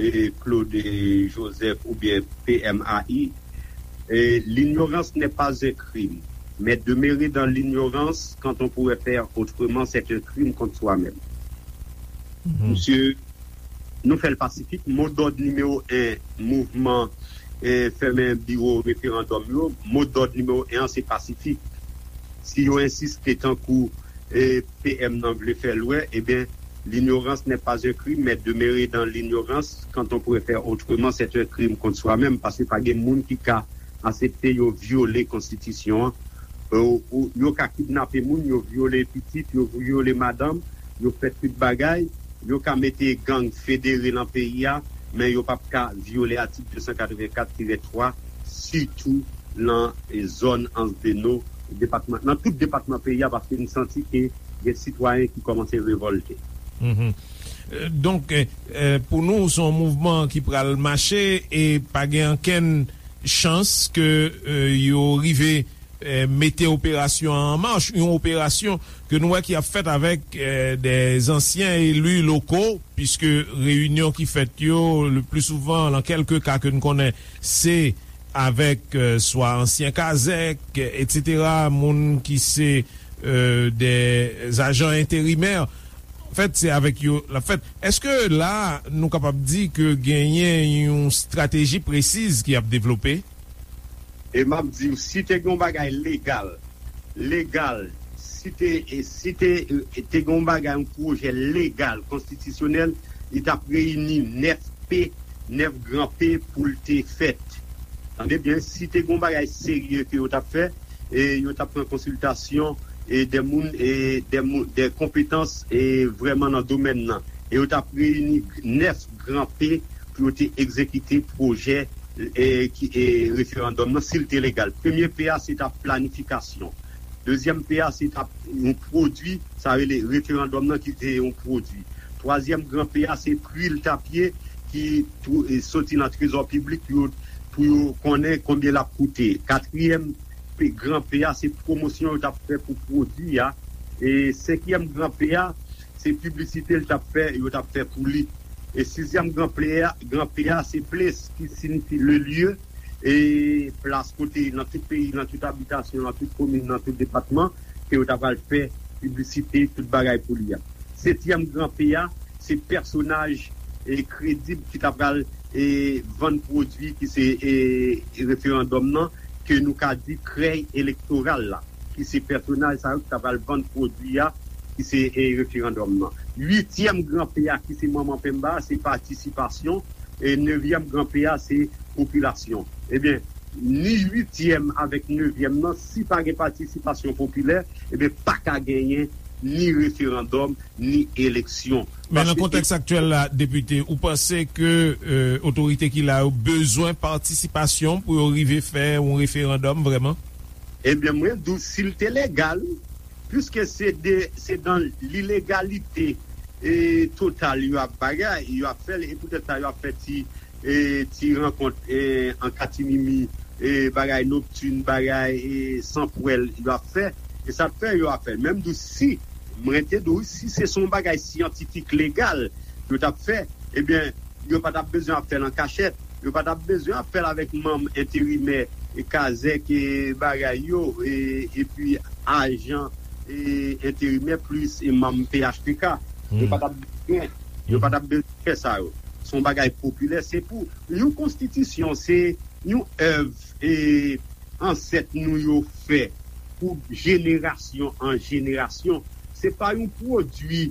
e, Claude Joseph oubyen P M A I, e, l'ignorance n'est pas un crime, mais demeurer dans l'ignorance quand on pourrait faire autrement, c'est un crime contre soi-même. Mhm. Misye, nou fè l pasifik. Modòd nimewo en mouvman, e, fèmen biwo referandòm yo, modòd nimewo en an se pasifik. Si yo ensiste tankou, e, P M nan vle fè l wè, ebyen, l'ignorance n'est pas un crime, mais demeurer dans l'ignorance quand on pourrait faire autrement, c'est un crime contre soi-même, paske pa gen moun ki ka aksepte yo vyole konstitisyon an. Yo, yo ka kidnape moun, yo vyole pitit, yo vyole madanm, yo fè tout bagay, yo ka mete gang federe nan peyi a, men yo p ap ka vyole atik de san katrevenkat tirè twa, sitou nan, e, zòn Anse des Naux, depatman, nan tout depatman peyi a, paske n santi ke gen sitwayen ki kòmanse revòlte. Mhm. E, donk, e, e, pou nou, se yon mouvman ki pral mache e pa gen okenn chans ke, e, yo rive, e, mete operasyon an an mach, yon operasyon ke nou wè ki ap fèt avèk, e, de zansyen eli loko, piske reyinyon ki fèt yo, le pli souvan, nan kèlke ka ke n konnen, se avèk, e, swa ansyen kazèk, etsetera, moun ki se, e, de ajan enterimè. Anfèt, se avèk yo l ap fèt. Èske la, nou kapab di ke genyen yon estrateji presiz ki ap devlope? E m ap di w, si te gen yon bagay legal, legal, si te, e, si te, e, te gen yon bagay, yon pwojè legal, konstitisyonèl, li t ap reyini nèf P, nèf gran P pou l te fèt. Tande byen, si te gen yon bagay serye ke yo t ap fè, e yo t ap pran konsiltasyon, e de moun, e de moun, de konpetans, e vrèman nan domèn nan. E yo t ap reyini nèf gran P pou yo te egzekite pwojè e, ki, e, referandòm nan, si l te legal. Premye P a, se t ap planifikasyon. Dezyèm P a, se t ap yon pwodui, sa rele referandòm nan ki te yon pwodui. Twazyèm gran P a, se pri l t ap ye, ki tou-, e, soti nan trezò piblik pou yo, pou yo konnen konbyen l ap koute. Katriyèm pe-, gran P a, se pwomosyon yo t ap fè pou pwodui a. E senkyèm gran P a, se piblisite l t ap fè, yo t ap fè pou li. E sizyèm gran P a, gran P a, se place, ki siyifi le lieu, e plas kote nan tout peyi, nan tout abitasyon, nan tout komin, nan tout depatman, ke yo ta pral fè piblisite, tout bagay pou li a. Setyèm gran P a, se pèsonaj, e, kredib ki ta pral, e, vann pwodui ki se, e, referandòm nan, ke nou ka di krèy elektoral la, ki se pèsonaj sa yo ki ta pral vann pwodui a, ki se, e, referandòm nan. Uityèm gran P a, ki se manman penba, se patisipasyon, e nevyèm gran P a, se popilasyon. Ebyen, ni uityèm avèk nevyèm nan, si pa gen patisipasyon popilè, ebyen, pa ka genyen ni referandòm, ni eleksyon. Men nan Paske kontèks aktyèl la, depite, ou panse ke, e, otorite ki la yo bezwen patisipasyon pou yo rive fè yon referandòm vrèman? Ebyen, mwen di w, si l te legal, piske se de, se dan lilegalite, e, total yo ap bagay, yo ap fè l, e poutèt sa yo ap fè ti, e, ti rankont, e, an katimimi, e, bagay noktin, bagay, e, san pwèl yo ap fè, e sa k fè yo ap fè l. Men m di w, si, mwen te di w, si se, se yon bagay syantifik, legal, yo t ap fè, ebyen, yo pa t ap bezwen ap fè l an kachèt. Yo pa t ap bezwen ap fè l avèk manm enterimè, e, kazèk, e, bagay yo, e, epi ajan, e, enterimè plis, e, manm P H T K. Yo Hmm. pa t ap bezwen, yo pa t ap bezwen fè sa yo. Se yon bagay popilè. Se pou yon konstitisyon, se yon èv, e, ansèt nou yo fè pou jenerasyon an jenerasyon. Se pa yon pwodui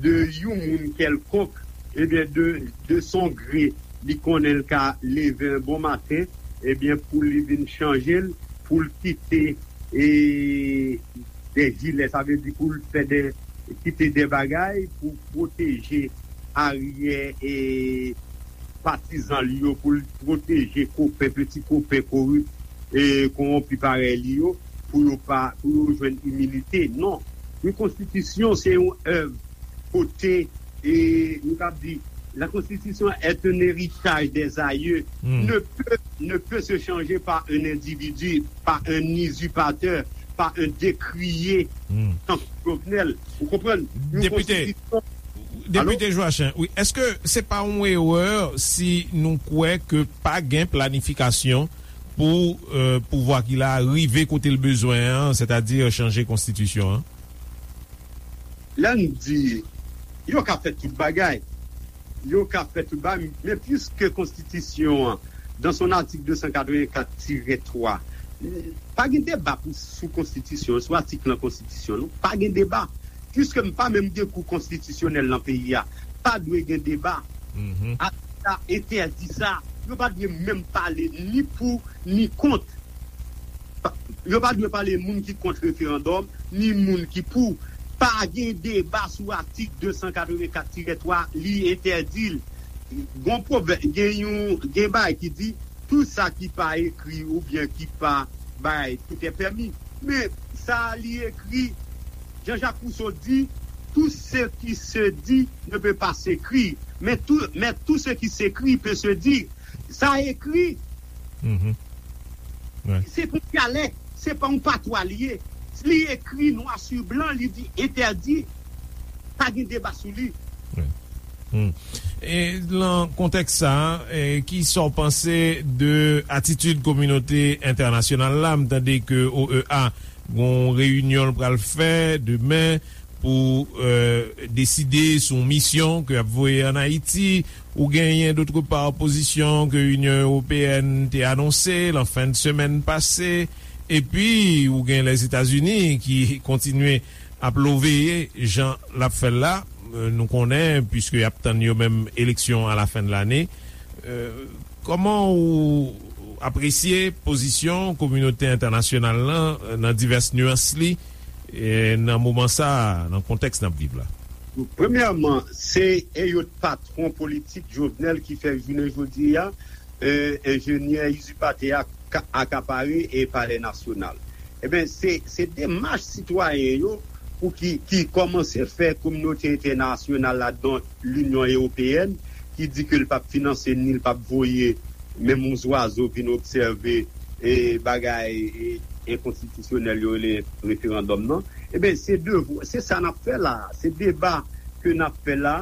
de yon moun kèlkonk, ebyen, de, de son gre, li konnen l ka leve yon bon maten, ebyen, pou li vin chanje l, pou l kite, e, de jilè, sa vle di pou l fè de, kite de bagay pou pwoteje aryè, e, patizan li yo, pou l pwoteje kopen, peti kopen korip, e, kowonpi parèy li yo, pou yo pa, pou yo jwenn iminite. Non. Yon konstitisyon, se yon èv kote, e, nou ka di, la Constitution est un héritage des aïeux, Hmm. ne peut, ne peut se changer par un individu, par un usurpateur, par un décrié, Hmm. tankou Jovenel. Ou konprann? Yon Depite, konstitisyon Depite Joachim, wi, èske se pa yon erè si nou kwè ke pa gen planifikasyon pou, e, pouvwa ki la rive kote l bezwen an, sètadi chanje konstitisyon an? Lè n di, yo ka fè tout bagay, yo ka fè tout bagay, men piske konstitisyon an, dans son article deux cent quatre-vingt-quatre tiret twa, pa gen deba pou, sou konstitisyon, sou atik nan konstitisyon, non, pa gen deba. Piske m pa menm gen kou konstitisyonèl nan peyi a, pa dwe gen deba. Mhm. Atik sa entèdi sa. Yo pa dwe menm pale ni pou, ni kont. Pa, yo pa dwe pale moun ki kont referandòm, ni moun ki pou. Pa gen deba sou atik de san katrevenkat tirè twa, li entèdi l. Gon pwovè-, gen yon, gen bagay ki di, tout sa ki pa ekri oubyen ki pa bay, tout est permis. Men sa li ekri, Jean-Jacques Rousseau di, tout ce qui se dit ne peut pas s'écrire, mais tout, mais tout ce qui s'écrit peut se dire. Sa ekri, Mhm. Wi. Se pou dyalèk, se pa yon patwa li ye. Li ekri nwa si blan, li di entèdi, pa gen deba sou li. Wi. Hmm. E nan kontèks sa, e, ki sa w panse de atitid kominote entènasyonal la? M tande ke O E A gon reyinyon l pral fè demen pou, e, deside sou yon misyon ke y ap voye ann Ayiti. Ou genyen, dòt pa, opozisyon ke Inyon Ewopeyèn te anonse lan fen de semèn pase. Epi, ou gen Lèzetazini ki kontinye ap loveye jan l ap fè l la. E, nou konnen, piske y ap tann yo menm eleksyon a la fen de lane. E, kòman ou apresye pozisyon kominote entènasyonal lan, e, nan divès nyans li, e, nan moman sa a, nan kontèks n ap viv la? Premyèman, se Elliott, patwon politik Jovenel, ki fè jounen jodi a, e, enjenyè izipatè a ka- akapare e Palè Nasyonal. Ebyen, se, se demach sitwayen yo pou ki, ki kòmanse fè kominote entènasyonal la, dont Linyon Ewopeyèn, ki di ke l p ap finanse ni l p ap voye menm yon zwazo vin obsève e bagay e, enkonstitisyonèl yo rele referandòm nan. Ebyen, se devwa, se sa n ap fè la. Se deba ke n ap fè la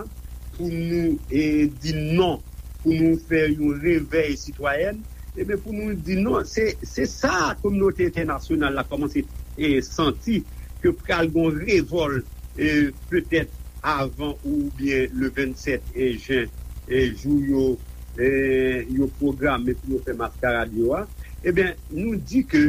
pou nou e, di non, pou nou fè yon revèy sitwayèn, ebyen, pou nou di non, se, se sa kominote entènasyonal la kòmanse e, santi ke pral gon revòl e, petèt avan oubyen le vennsèt e, jen, e, jou yo e, yo pwograme pou yo fè maskarad yo a. Ebyen, nou di ke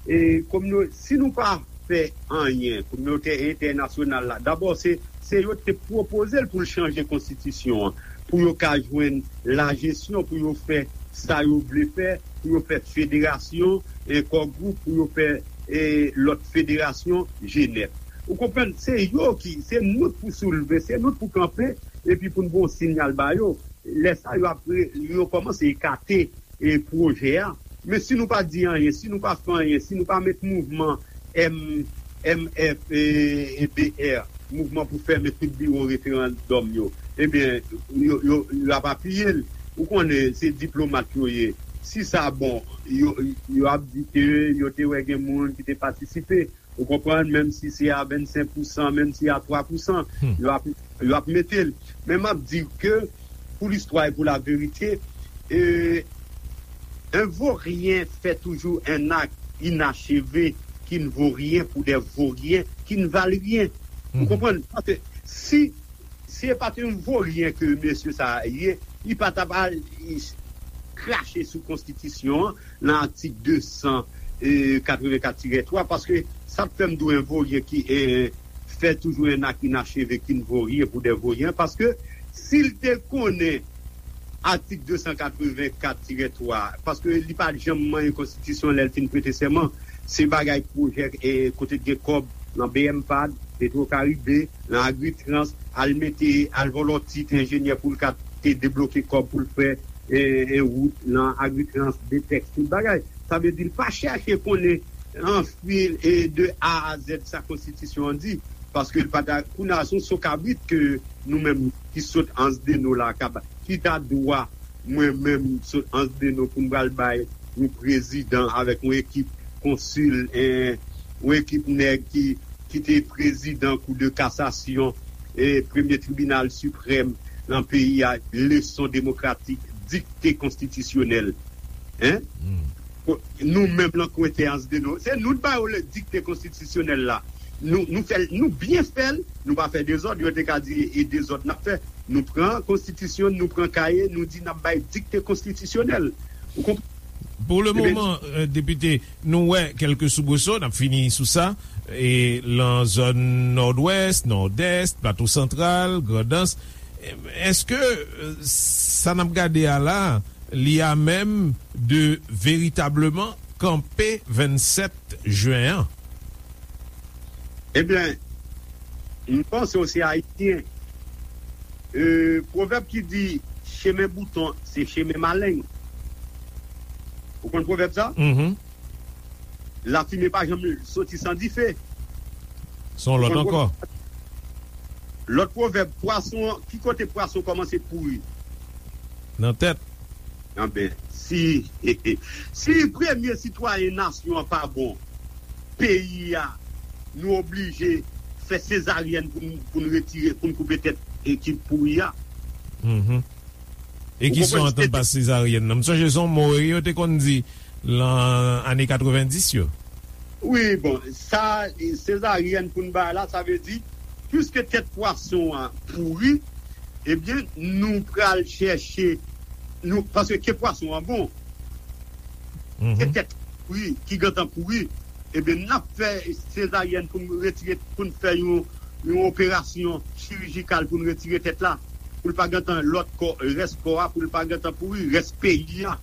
e, komino, si nou pa fè anyen, kominote entènasyonal la, dabò se, se yo te pwopoze l pou l chanje konstitisyon an, pou yo ka jwenn lajesyon, pou yo fè sa yo vle fè, pou yo fè federasyon, e, kò gwoup, pou yo fè e, lòt federasyon, Jenèf. Ou konprann? Se yo ki, se nou k pou soulve, se nou k pou kanpe, epi pou n ba yon siyal ba yo. Lè sa yo ap re- yo kòmanse ekate e, pwojè a. Men si nou pa di anyen, si nou pa fè anyen, si nou pa met mouvman M, M F e, e B R, mouvman pou fèmen tout biwo referandòm yo, ebyen, yo, yo, yo ap apiye l. Ou konnen, se diplomat yo ye. Si sa bon, yo, yo ap di ke yo te wè gen moun ki te patisipe. Ou konprann, menm si se a vennsenk pousan, menm si a twa pousan, yo ap, yo ap mete l. Men m ap di ke, pou listwa e pou laverite, e, un vaurien fait toujours un acte inachevé qui ne vaut rien pour des vauriens qui ne valent rien. Ou konprann? Paske si, si e pa t yon voryen ke mesye sa a ye, li pa t ap al krache sou konstitisyon an nan atik de san katrevenkat tirè twa, paske sa k fè m di w un vaurien qui e, fait toujours un acte inachevé qui ne vaut rien pour des vauriens, paske si l te konnen atik de san katrevenkat tirè twa, paske li pa t janm manyen konstitisyon lè l fin prete sèman, se bagay pwojè e, kote t gen kòb nan B M pad, Petro Caribe, nan Agritrans, al mete, al vòlò tit enjenyè pou l ka te debloke kòb pou l fè e, e, wout nan Agritrans, Detex, tout bagay. Sa vle di l pa chèche konnen anfil e de A a Z sa konstitisyon an di, paske l pa ta, kounye a se yon so kabrit ke nou menm ki sot Anse des Naux la, ki ta dwa mwen menm sot Anse des Naux pou m pral bay yon prezidan avèk yon ekip konsil, en, yon ekip nèg ki, ki te prezidan Kou de Kasasyon e Premye Tribinal Siprèm nan peyi a, leson demokratik, dikte konstitisyonèl. En? Nou menm lan kwen te Anse des Naux, se nou t ba yo le dikte konstitisyonèl la. Nou, nou fè l, nou byen fè l, nou pa fè dezòd, yo te ka di e dezòd n ap fè. Nou pran konstitisyon, nou pran kaye, nou di n ap bay dikte konstitisyonèl. Ou konprann? Pou le moman, depite, nou wè kèlke soubreso, n ap fini sou sa, e lan zòn Nòdwès, Nòdès, Plato Santral, Grandans. Èske sa n ap gade a la, li a menm de veritableman kanpe vennsèt jen an? Ebyen, m panse w se Ayisyen. E, pwovèb ki di, chemen bouton, se chemen maleng. Ou konn pwovèb sa? Lafimen pa janm soti san dife. Se yon lòt ankò. Lòt pwovèb, pwason, ki kote pwason kòmanse pouri? Nan tèt. Anben, si, si premye sitwayen nasyon an pa bon, peyi a, nou oblije fè sezaryèn pou n, pou n retire, pou n koupe tèt ekip pouri a. E ki sa w antann pa sezaryèn nan? M sonje se yon mo yo te konn di lan ane katrevenndis yo. Wi, bon, sa, sezaryèn pou n bay la, sa vle di, piske tèt pwason an pouri, ebyen, nou pral chèche, nou, paske ke pwason an bon, ke tèt pouri, ki gentan pouri, ebyen, n ap fè sezaryèn pou n retire, pou n fè yon, yon operasyon chirijikal pou n retire tèt la, pou l pa gentan lòt kò, rès kò a, pou l pa gentan pouri, rès peyi a.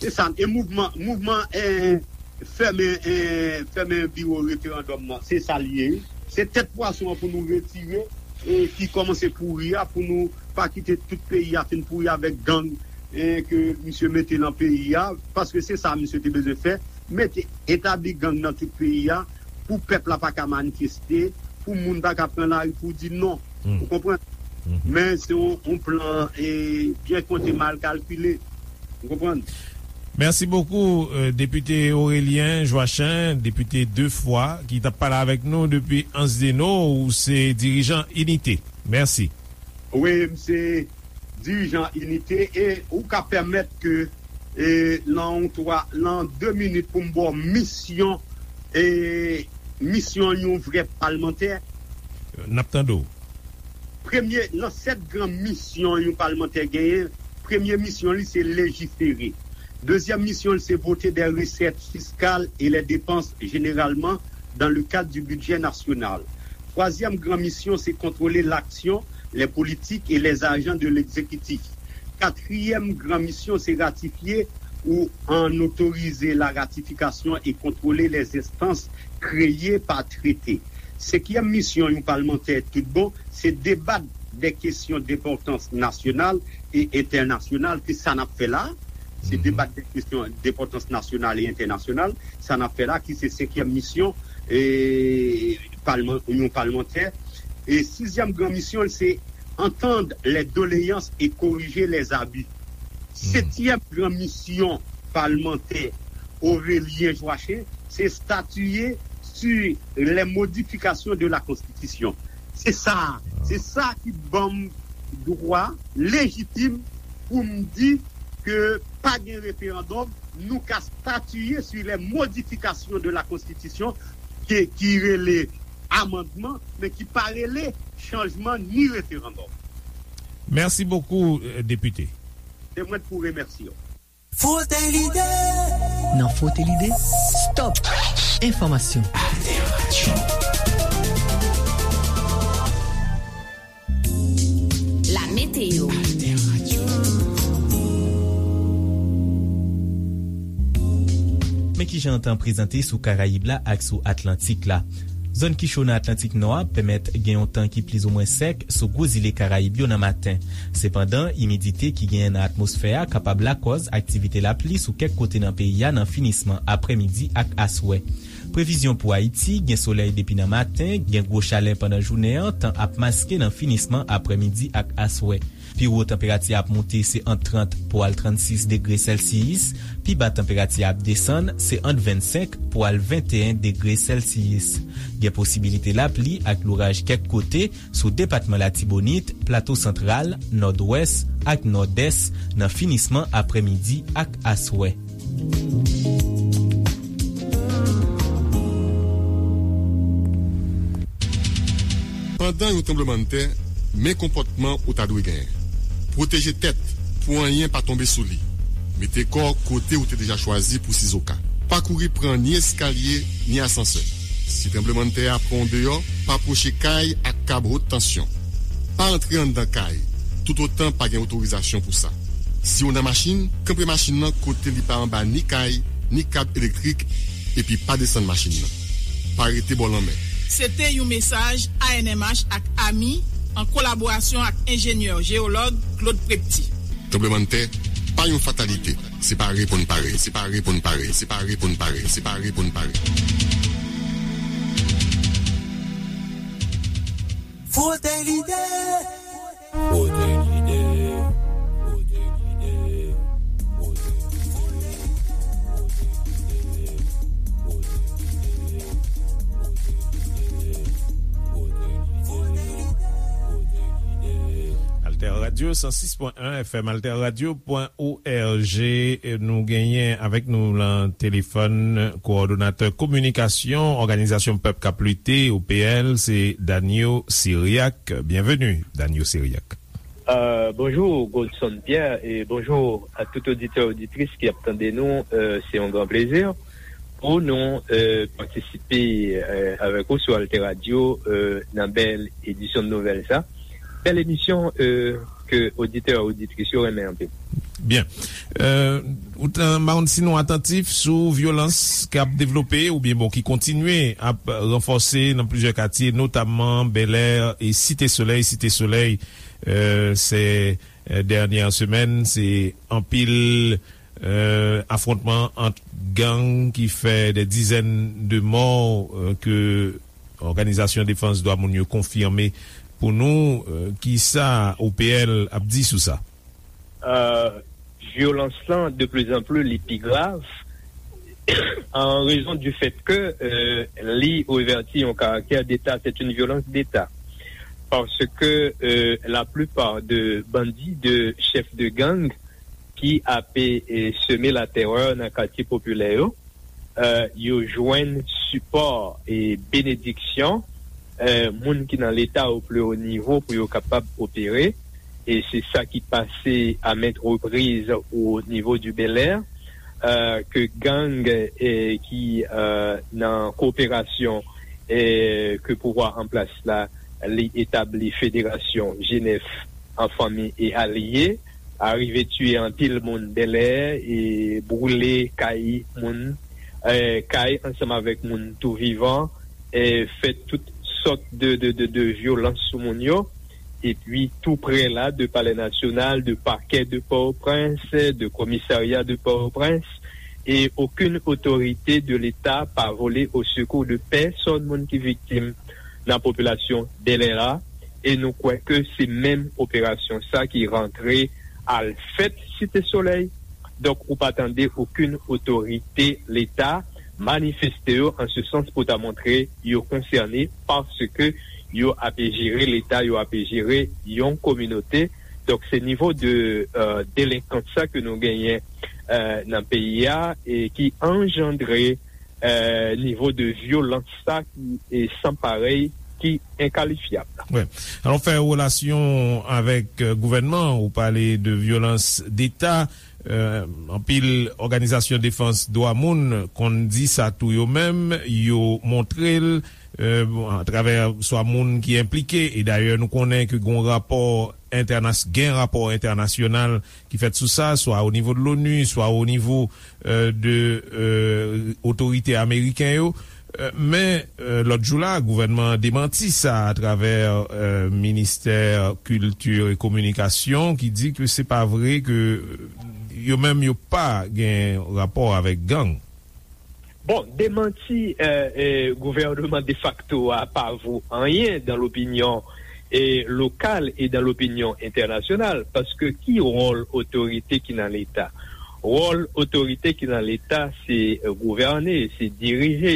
Se sa, e mouvman, mouvman, eh, fèmen, eh, fèmen biwo referandòm nan, se sa l ye, wi. Se tèt pwason an pou nou retire, e ki kòmanse pouri a, pou nou pa kite tout peyi a fin pouri avèk gang, e ke misye mete nan peyi a, paske se sa misye te bezwen fè, mete, etabli gang nan tout peyi a, pou pèp la pa ka manifeste, pou moun pa ka pran lari pou di non. Ou konprann? Men se yon, yon plan, e, byen konte, mal kalkile. Ou konprann? Mèsi bokou, euh, Depite Aurélien Joachin, depite de fwa, ki t ap pale avèk nou depi Ansdeno. Ou se dirijan Inite. Mèsi. Wi, m se dirijan Inite, e ou ka pèmèt ke, e, nan yon twa, nan de minit pou m ba w misyon, e, misyon yon vrè palmantè. N ap tande w. Premye, nan sèt gran misyon yon palmantè genyen, premye misyon li se lejifere. Dezyèm misyon li se voter des recettes fiscales et les dépenses généralement dans le cadre du budget national. Twazyèm gran misyon se contrôler l'action, les politiques et les agents de l'exécutif. Katriyèm gran misyon se ratifye ou an otorize la ratifikasyon e kontwole les instances créées par traité. Senkyèm misyon yon palmantè tout bon se debat de kesyon denpòtans nasyonal e entènasyonal, ki sa n ap fè la. Se debat de kesyon denpòtans nasyonal e entènasyonal, sa n ap fè la, ki se senkyèm misyon, e, palman, yon palmantè. E sizyèm gran misyon l se entendre les doléances et corriger les abus. Setyèm gran misyon palmantè Aurélien Joachin se statuer sur les modifications de la Constitution. Se sa, se sa ki ban m dwa lejitim pou m di ke pa gen referandòm, nou ka statiye sur les modifications de la Constitution ki, ki rele amandman, men ki pa rele chanjman ni referandòm. Mèsi bokou, euh, depite. Se mwen pou remèsye w. Frote lide. Nan Frote lide, stop enfòmasyon. Alter Radio. La météo. Men kijan tan prezante sou Karayib la ak sou Atlantik la. Zòn ki cho nan Atlantik Nò a pèmèt gen yon tan ki plizoumwen sèk sou gwo zile Karayib yo nan maten. Sepandan, imidite ki genyen nan atmosfè a kapab lakòz aktivite lapli sou kèk kote nan peyi a nan finisman aprèmidi ak aswè. Previzyon pou Ayiti, gen solèy depi nan maten, gen gwo chalè pandan jounen an, tan ap maske nan finisman aprèmidi ak aswè. Pi wo tanperati a ap moute se ant trant pou al trannsis degre sèlsiyis, pi ba tanperati a ap desann se ant vennsenk pou al venteyen degre sèlsiyis. Gen posibilite lapli ak louraj kèk kote sou depatman Latibonit, Plato Santral, Nòdwès ak Nòdès nan finisman aprèmidi ak aswè. Pandan yon tranblemanntè, men konpòtman ou ta dwe genyen. Pwoteje tèt pou anyen pa tonbe sou li. Mete kò w kote ou te deja chwazi pou sizoka. Pa kouri pran ni eskalye, ni asansè. Si tranblemanntè a pran w deyò, pa pwoche kay ak kab wot tansyon. Pa antre anndan kay, toutotan pa gen otorizasyon pou sa. Si w nan machin, kanpe machin nan kote li pa anba ni kay, ni kab elektrik, epi pa desann machin nan. Pa rete bò lanmè. Se te yon mesaj A N M H ak ami, an kolaborasyon ak enjenyè jeyològ Claude Prepty. Tranblemanntè pa yon fatalite. Se pare pou n pare. Se pare pou n pare. Se pare pou n pare. Se pare pou n pare. Frote lide. Frote lide. Frote lide. Frote lide. Alter Radio san sis pwen en F M, alter radio pwen O R G. Nou genyen avèk nou nan telefòn kowòdonatè kominikasyon Òganizasyon Pèp k ap Lite, O P L, se Danio Cyriaque. Byenveni, Danio Cyriaque. Euh, bonjou, Godson Pierre, e bonjou a tout oditè, oditris ki ap tande nou. Euh, se yon gran plezi pou nou, euh, patisipe, euh, avèk ou sou Alter Radio, euh, nan bèl edisyon de nouvèl sa. Bèl emisyon, euh, ke oditè, oditris yo renmen anpil. Byen. Euh, ou t-, m pa konn si nou atantif sou vyolans k ap devlope oubyen, bon, ki kontinye ap ranfòse nan plizyè katye, notamman Bèlè e Site Solèy. Site Solèy, euh, se, euh, dènyè semèn, se anpil, euh, afwontman ant gang ki fè dè dizèn de mò, euh, ke Òganizasyon Defans Dwa Moun yo konfime pou nou, euh, kisa O P L ap di sou sa? Euh, vyolans lan, de plus en plus, li pi grav, an rezon du fait que, euh, li revèti yon karaktè d'État, c'est une violence d'État. Parce que, euh, la plupart de bandits, de chefs de gang, ki ape, eh, seme latèrè nan katye popilè yo, eh, yo jwenn sipò e benediksyon, eh, moun ki nan Leta o pli wo nivo pou yo kapab opere. E se sa ki pase a maintes reprises au niveau du Bel Air, eh, ke gang, eh, ki, eh, nan koperasyon, eh, ke pouvwa an plas la, li etabli Federasyon G nèf an fanmi e alye, arive tiye anpil moun Bèlè e boule kay moun, eh, kay ansanm avèk moun tou vivan, eh, fè tout sòt de, de, de, de vyolans sou moun yo. Epi tou prè la, de Palè Nasyonal, de pakè de Pòtoprens, de komisarya de Pòtoprens, e okenn otorite de Leta pa vole o sekou de pèsòn moun ki viktim nan popilasyon Bèlè la, e nou kwè ke se menm operasyon sa ki rantre al fèt Site Solèy. Donk, ou pa tande okenn otorite Leta manifeste yo an se sans pou ta montre yo konsène paske yo ape jere Leta, yo ape jere yon kominote. Donk, se nivo de, euh, delenkans sa ke nou genyen, euh, nan peyi a e ki anjandre eh, nivo de vyolans sa ki, eh, san parèy, ki enkalifyab. Wi. Alò, fè relasyon avèk, eh, gouvènman, ou pale de vyolans deta. Eh, anpil òganizasyon defans dwa moun konn di sa tou yo menm, yo montre l, eh, bon, atravè swa moun ki enplike, e dayè nou konnen ke gon rapò entènas-, gen rapò entènasyonal ki fèt sou sa, swa o nivo de l'ONU, swa o nivo, euh, de, euh, otorite ameriken yo. Euh, men, euh, lòt jou la, gouvènman an demanti sa atravè, euh, ministè kilti e kominikasyon ki di ke se pa vre, ke, euh, yo menm yo pa gen rapò avèk gang. Bon, demanti, eh, eh, gouvènman defakto a pa vo anyen dans l'opinion, eh, locale et dans l'opinion internationale, paske ki wòl otorite ki nan Leta? Wòl otorite ki nan Leta, se, eh, gouvène, se dirije,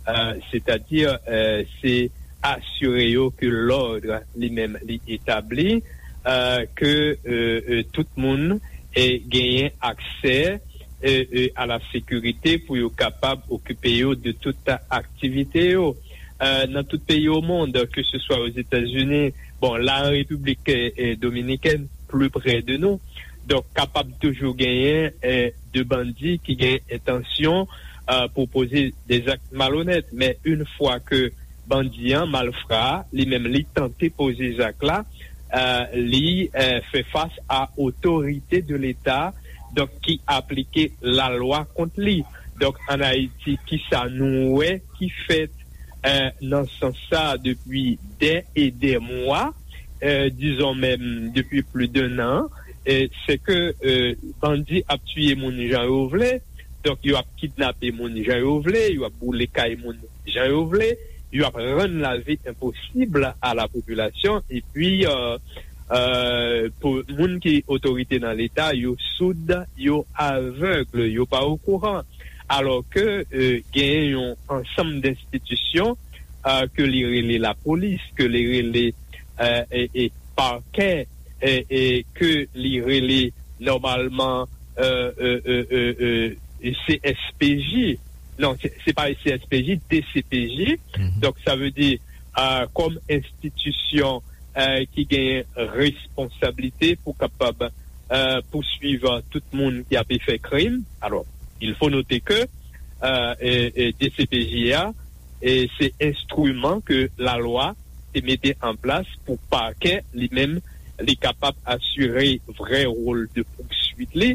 eh, sètadi, eh, se asire yo ke lòd li menm li etabli, eh, ke, eh, eh, tout moun, eh, genyen aksè, eh, eh, a la sekirite pou yo kapab okipe yo de tout aktivite yo. Eh, nan tout peyi o mond, ke se swa Ozetazini, bon, la an Repiblik, eh, eh, Dominikèn, pli prè de nou. Donk, kapab toujou genyen, eh, de bandi ki gen entansyon, eh, pou poze de zak malonèt. Men, yon fwa ke bandi an, malfra a, li menm li tante poze zak la, eh, li, eh, fè fas a otorite de Leta, donk ki aplike lalwa kont li. Donk, ann Ayiti, kisa nou wè ki fèt, eh, nan sans sa depi dè e dè mwa, eh, dizon menm depi plis de nan, eh, se ke, eh, bandi ap tiye moun jan yo vle, donk yo ap kidnape moun jan yo vle, yo ap boule kay moun jan yo vle, yo ap rann lavi enposib a la popilasyon, epi, eh, eh, pou moun ki otorite nan Leta, yo soud, yo avèg, yo pa okouran. Alò ke, eh, genyen yon ansanm denstitisyon, eh, ke li rele lapolis, ke li rele, eh, e, e pakè, eh, e ke li rele nòmalman, eh, eh, eh, eh, eh, C S P J. Non, se, se pa C S P J, D C P J. Donk, sa vle di, eh, kòm enstitisyon, eh, ki gen responsablite pou kapab, eh, pouswiv tout moun ki ape fè krim. Alò, il faut noter que, eh, eh, eh, D C P J a, eh, se enstriman ke lalwa te mete an plas pou pakè li menm li kapab asire vrè wòl de pousuit li.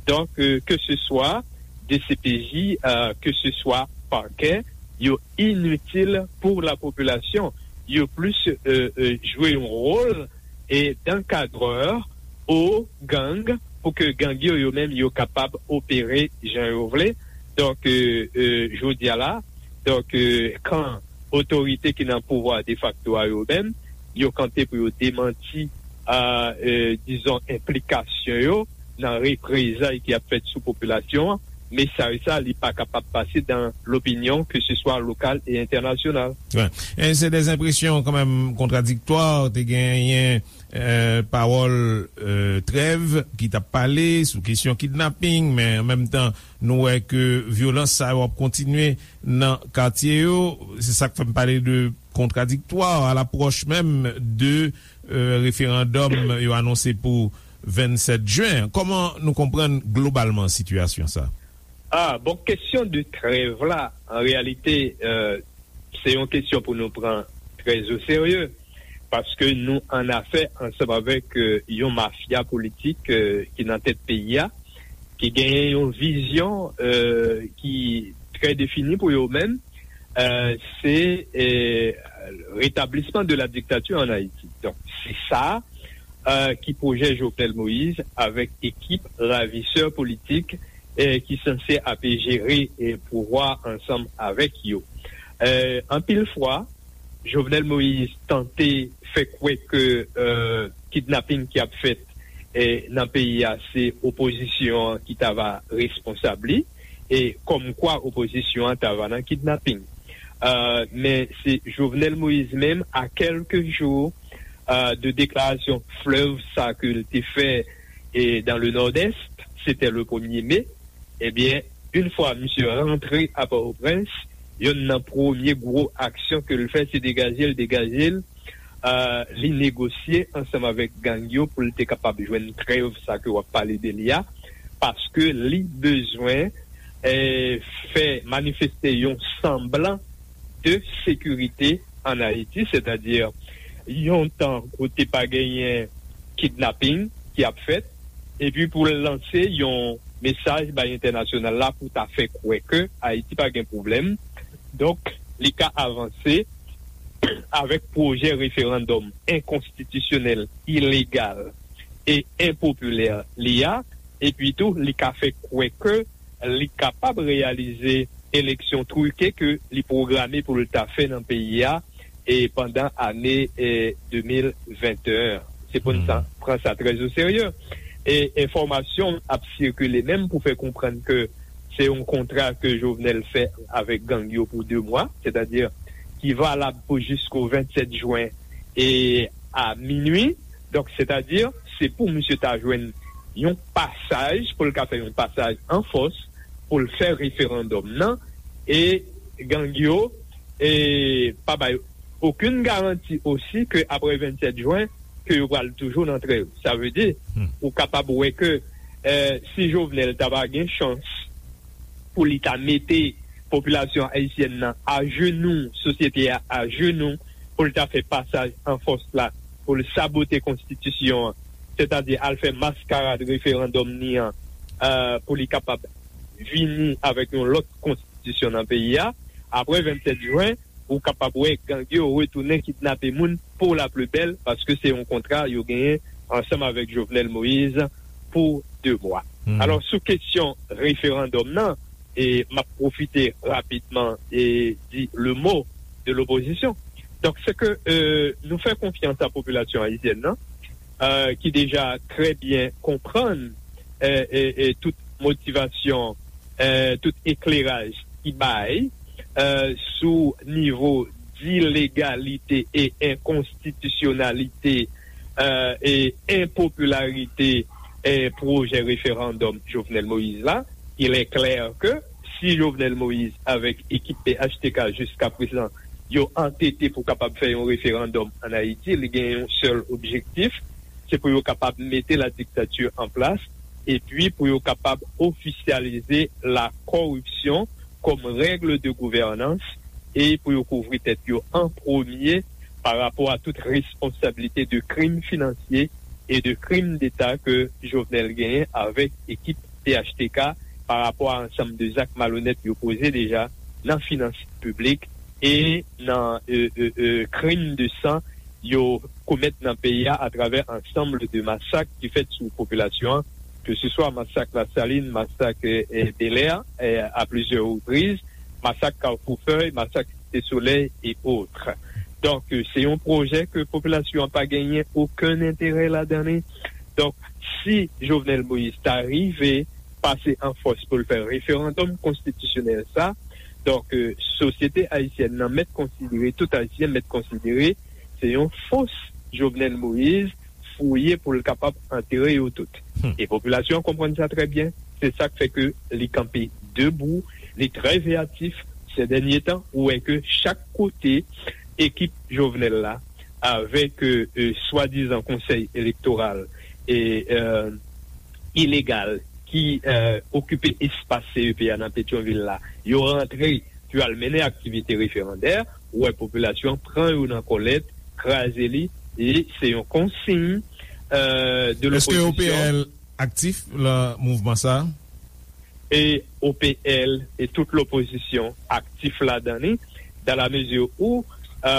Donk, euh, ke se swa D C P J, euh, ke se swa pakè, yo initil pou la popilasyon. Yo plis, euh, euh, jwe yon wòl e d'ankadrè o gang pou ke gang yo, yo menm, yo kapab opere jan yo vle. Donk, euh, euh, jodi a la, donk, euh, kan otorite ki nan pouvwa defakto a yo menm, yo kanpe pou yo demanti, euh, euh, dizon, enplikasyon yo nan reprezay ki ap fèt sou popilasyon an. Mesaj sa, li pa kapab pase dan lopinyon, ke se swa lokal e entènasyonal. Wi. E se de enpresyon kanmenm kontradiktwa, te genyen, euh, pawòl, euh, trèv ki t ap pale sou kesyon kidnaping, men an menm tan, nou wè ke vyolans sa yo ap kontinye nan katye yo. Se sa k fè m pale de kontradiktwa a lapwòch menm de, euh, referandòm yo anonse pou vennsèt jen. Kòman nou konprann globalman sitiyasyon sa? Ah, bon, kesyon de trèv la, an reyalite, euh, se yon kesyon pou nou pran trè o serye, paske nou an afè ansanm avèk, euh, yon mafya politik, euh, ki nan tèt peyi a, ki genyen yon vizyon, euh, ki trè defini pou yo menm, euh, se, euh, rétablissement de la dictature en Haïti. Donk, se sa, euh, ki pwojè Jovenel Moïse avèk ekip ravisè politik, euh, ki sanse ap jere, euh, pouvwa ansanm avèk yo. Euh, anpil fwa, Jovenel Moïse tante fè kwè ke, euh, kidnaping ki ap fèt, euh, nan peyi a, se opozisyon an ki ta va responsab li, e kòmkwa opozisyon an ta va nan kidnaping. Euh, men se Jovenel Moïse menm, a kèlke jou, euh, de deklarasyon flèv sa ke l te fè, e dans le Nord-Est, c'était le premier mai, ebyen, yon fwa misye rantre a Pòtoprens, yonn nan premye gwo aksyon ke l fè, se degaje l, degaje l. Euh, li negosye ansanm avèk gang yo pou l te kapab jwenn trèv sa ke w ap pale de li a, paske li bezwen, eh, fè manifeste yon sanblan de sekirite an Ayiti, sètadi yon tan kote pa genyen kidnaping ki ap fèt, epi pou l lanse yon mesaj bay entènasyonal la pou ta fè kwè ke Ayiti pa gen pwoblèm. Donk, li ka avanse avèk pwojè referandòm enkonstitisyonèl, ilegal e enpopilè li a, epi tou, li ka fè kwè ke li kapab reyalize eleksyon twike ke li pwograme pou l ta fè nan peyi a, e pandan ane, e, de mil venteyen. Se pou n sa, pran sa trè o serye. E enfòmasyon ap sikile menm pou fè konprann ke se yon kontra ke Jovenel fè avèk gang yo pou de mwa, sètadi ki valab pou jisko vennsèt jen e a minui. Donk, sètadi, se pou misye ta jwenn yon pasaj, pou l ka fè yon pasaj an fòs, pou l fè referandòm nan, e gang yo, e pa bay okenn garanti osi ke apre vennsèt jen, ke yo pral toujou nan trèv. Sa vle di, ou kapab wè ke, eh, si Jovenel ta va gen chans pou li ta mete popilasyon ayisyèn nan ajenou, sosyete a ajenou, pou l ta fè pasaj an fòs la, pou l sabote konstitisyon an, sètadi al fè maskarad referandòm ni an, eh, pou li kapab vini avèk yon lòt konstitisyon nan peyi a. Apre vennsèt jen, ou kapab wè gang yo retounen kidnape moun pou la pli bèl, paske se yon kontra yo genyen ansanm avèk Jovenel Moïse pou de mwa. Alò, sou kesyon referandòm nan, e m ap pwofite rapidman e di le mot de l'opposition. Donk, se ke, euh, nou fè konfyans a popilasyon ayisyèn nan, euh, ki deja trè byen konprann, euh, e, e tout motivasyon, euh, tout ekleraj ki bay, euh, sou nivo dilegalite e enkonstitisyonalite, euh, e enpopilarite, euh, pwojè referandòm Jovenel Moïse la. Il est clair que si Jovenel Moïse avèk ekip P H T K jiska prezan yo antete pou kapab fè yon referandòm an Ayiti, li gen yon sèl objektif, se pou yo kapab mete la diktati an plas, epi pou yo kapab ofisyalize la koripsyon kòm règle de gouvènans e pou yo kouvri tèt yo an premye pa rapò a tout responsablite de krim finansye e de krim deta ke Jovenel genyen avèk ekip P H T K pa rapò a ansanm de zak malonèt yo poze deja nan finans piblik e nan e, e, e, krim de san yo komèt nan peyi a atravè ansanm de masak ki fèt sou popilasyon an, ke se swa masak Lasalin, masak e, e, Belè e, a plizyè repriz, masak Kafou Fèy, masak Site Solèy e otre. Donk, e, se yon pwojè ke popilasyon an pa genyen okenn enterè ladan li. Donk, si Jovenel Moïse ta rive pase an fòs pou l fè referandòm konstitisyonèl sa, donk, e, sosyete ayisyèn nan mèt konsidere, tout Ayisyen mèt konsidere, se yon fos Jovenel Moïse fouye pou l kapab antere yo tout. E popilasyon an konprann sa trè byen. Se sa k fè ke li kanpe debou, li trè veyatif. Sè dènye tan, ou wè ke chak kote ekip Jovenel la, avèk e, e, swadizan konsèy elektoral e, e, ilegal ki e, okipe espas C E P a nan Petyonvil la, yo rantre pou al mennen aktivite referandè, ou wè popilasyon an pran yo nan kòlèt, kraze li, e se yon konsiy e, de Èske lopozisyon. O P L aktif nan mouvman sa a? E O P L e tout lopozisyon aktif ladan li, dans la mesure où e,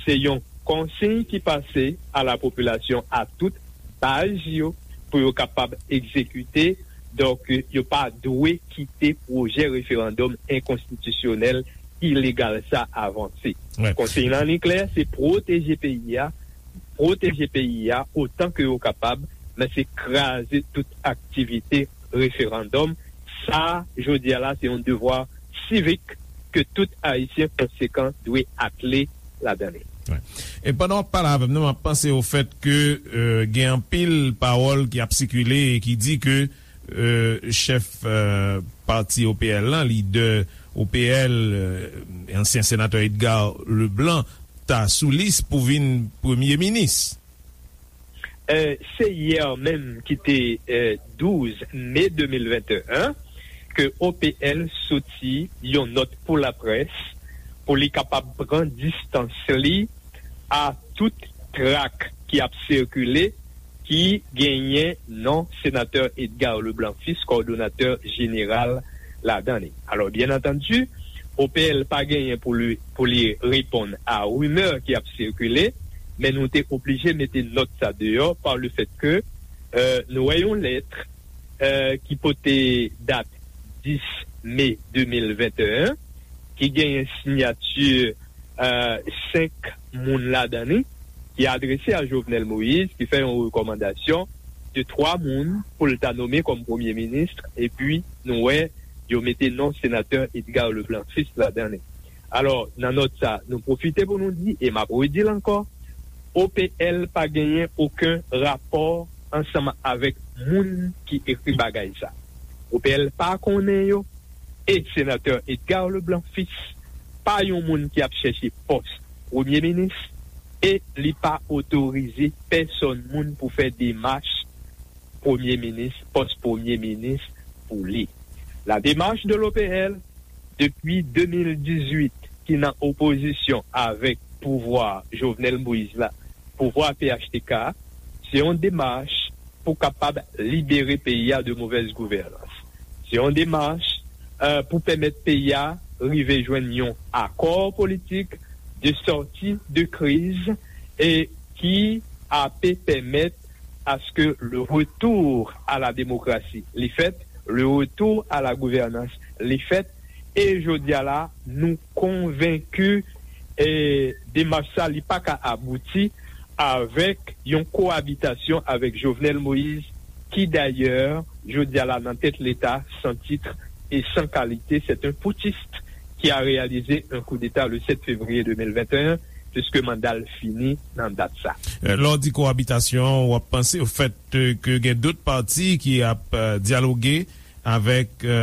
se yon konsiy ki pase a la popilasyon, a tout baz yo, pou yo kapab egzekite. Donk, yo pa dwe kite pwojè referandòm enkonstitisyonèl, ilegal sa avanse. Konsiy lan li klè, se pwoteje peyi a, pwoteje peyi a otan ke yo kapab, men se kraze tout aktivite referandòm. Sa, jodi a la, se yon devwa sivik ke tout Ayisyen konsekan dwe atle ladan li. E pandan w ap pale avè m nan, m ap panse o fèt ke e, gen anpil pawòl ki ap sikile e ki di ke e, chèf e, pati O P L lan, lidè O P L, e, ansyen senatè Edgar Leblanc, ta sou lis pou vin premye minis. E, se yè menm ki te e, douz me de mil venteyen ke O P L soti yon nòt pou laprès pou li kapab pran distans li a tout trak ki ap sikile ki genyen non senatè Edgar Leblanc Fils, kòdonatè jeneral ladan li. Alò, byen antandi, O P L pa genyen pou li, pou li reponn a rimè ki ap sikile, men nou te oblije mete nòt sa deyò pa le fèt ke e, nou wè yon lèt e, ki pote dat dis me de mil venteyen, ki genyen siyati e, senk moun ladan li, ki adrese a Jovenel Moïse, ki fè yon rekòmandasyon de twa moun pou l ta nome kòm premye minis, epi nou wè yo mete non senatè Edgar Leblanc Fils ladan li. Alò, nan nòt sa, nou pwofite pou nou di, e m ap redi l ankò, O P L pa genyen okenn rapò ansanm avèk moun ki ekri bagay sa. O P L pa konnen yo, e senatè Edgar Leblanc Fils pa yon moun ki ap chèche pòs premye minis, e li pa otorize pèsòn moun pou fè demach premye minis, pòs premye minis pou li. La démarche de l'O P L, depi de mil dizuit, ki nan opozisyon avèk pouvwa Jovenel Moïse la, pouvwa P H T K, se yon demach pou kapab libere peyi a de movèz gouvènans. Se yon demach e, pou pèmèt peyi a rive jwenn yon akò politik de sòti de kriz e ki ape pèmèt aske le retour à la démocratie li fèt, le retour à la gouvernance li fèt, e jodi a la, nou konvenki e demach sa li pa ka abouti avèk yon koabitasyon avèk Jovenel Moïse, ki dayè, jodi a la nan tèt Leta, san titre et sans qualité, c'est un putschiste qui a réalisé un coup d'État le sept février deux mille vingt et un, puisque manda l fini nan dat sa. E, lè w di koabitasyon, w ap panse o fèt e, ke gen dòt pati ki ap e, dyaloge avèk e,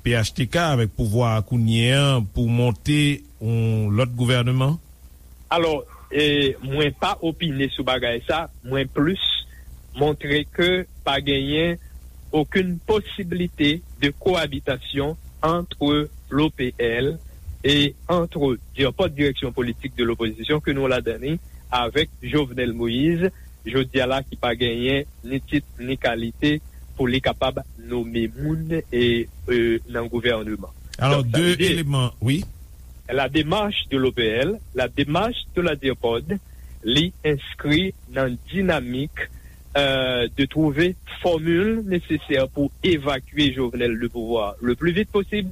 P H T K, avèk pouvwa a kounye an pou monte yon lòt gouvènman? Alò, e, mwen pa opine sou bagay sa, mwen plis montre ke pa genyen okenn posiblite de koabitasyon antre l'O P L e antre nenpòt direksyon politik de lopozisyon ke nou ladan li avèk Jovenel Moïse, jodi a la ki pa genyen ni tit ni kalite pou li kapab nome moun e, e, nan gouvènman. Alò, de eleman, wi. La démarche de l'O P L, la démarche de la DIRPOD, li enskri nan dinamik, euh, de trouver formule nécessaire pour évacuer Jovenel du pouvoir le plus vite possible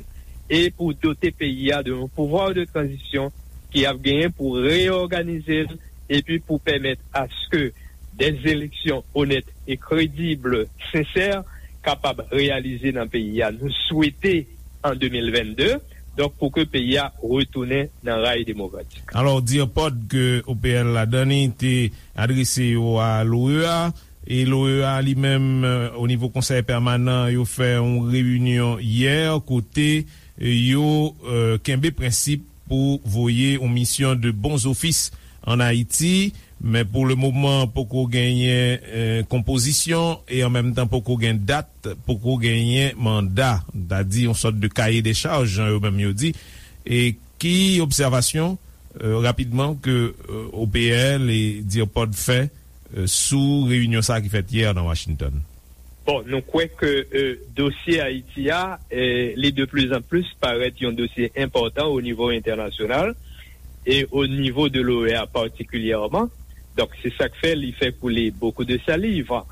et pour doter peyi a de yon pouvwa de tranzisyon ki ap genyen pou reyòganize l epi pou pèmèt aske des élections honnêtes et crédibles, sincères, kapab reyalize nan peyi a. Nou swete an de mil vennde, donk pou ke peyi a retounen nan ray demokratik. Alò, DIRPOD ke O P L ladan li te adrese yo a l'OEA, e l'OEA li menm, euh, o nivo Konsèy Pèmanan, yo fè yon reyinyon yè kote, euh, yo, euh, kenbe prensip pou voye yon misyon de bons offices ann Ayiti, men pou le moman poko genyen, euh, konpozisyon e an menm tan poko gen dat, poko genyen manda, ta di yon sòt de cahier des charges, jan yo menm yo di. E ki obsèvasyon, euh, rapidman ke, euh, O P L e DIRPOD fè, euh, sou reyinyon sa ki fèt yè nan Washington? Bon, nou kwè ke, euh, dosye Ayiti a, euh, li de plus en plus parèt yon dosye enpòtan o nivo entènasyonal e o nivo de l'OEA patikilyèman. Donk, se sa k fè li fè couler beaucoup de salive.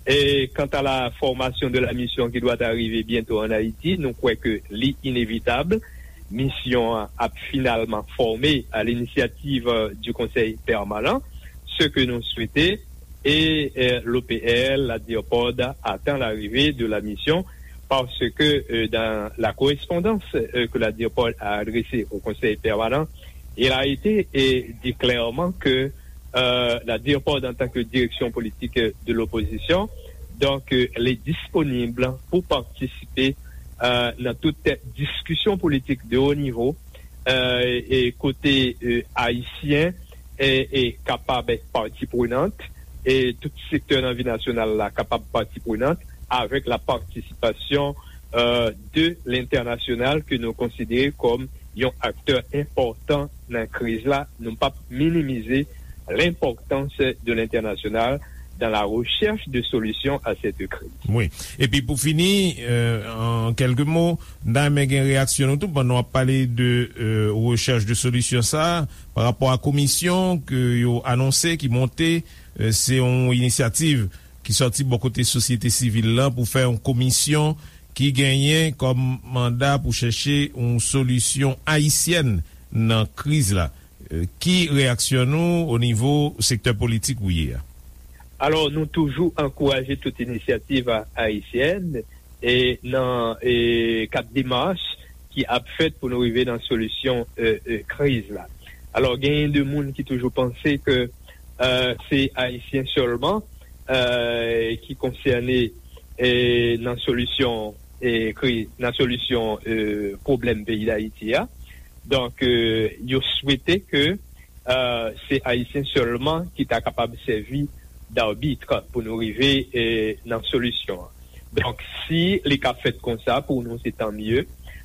Et quant à la formation de la mission qui doit arriver bientôt en Haïti, nou kwè ke li inévitable. Misyon an ap finalman fòme à l'initiative, euh, du Conseil permanent, ce que nous souhaitons, et, euh, l'O P L, la DIRPOD attend l'arrivée de la mission parce que, euh, dans la correspondance, euh, que la DIRPOD a adressée au Conseil permanent, il a été, euh, dit clairement que, euh, la DIRPOD en tant que direction politique de l'opposition, donc, euh, elle est disponible pour participer, euh, dans toute discussion politique de haut niveau, euh, e kote, euh, ayisyen e, e kapab èt pati prenant, e tout sektè nan vi nasyonal la kapab pati prenant, avèk la partisipasyon, euh, de lentènasyonal ke nou konsidere kòm yon aktè enpòtan nan kriz la. Nou p ap minimize l'importance de l'international dans la recherche de solutions à cette crise. Wi. Epi pou fini, euh, an kèlke mo, n ta renmen gen reyaksyon nou tou pandan w ap pale de, euh, recherche de solution sa, pa rapò a komisyon ke yo anonse ki monte, euh, se yon inisyativ ki sòti bò kote sosyete sivil lan pou fè yon komisyon ki genyen kòm manda pou chèche yon solisyon ayisyèn nan kriz la. Euh, ki reyaksyon nou o nivo sektè politik ou ye a? Alò, nou toujou ankouraje tout inisyativ a-, ayisyèn e nan, e, kad demach ki ap fèt pou nou rive nan solisyon, euh, euh, kriz la. Alò, genyen de moun ki toujou panse ke, euh, se ayisyen sèlman, euh, ki konsène, e, nan solisyon, e, kriz, nan solisyon, euh, pwoblèm peyi Dayiti a. Donk, euh, yo swete ke, euh, se ayisyen sèlman ki ta kapab sèvi d'arbitre pou nou rive, euh, nan solisyon an. Donk, si li ka fèt konsa, pou nou, se tan mye.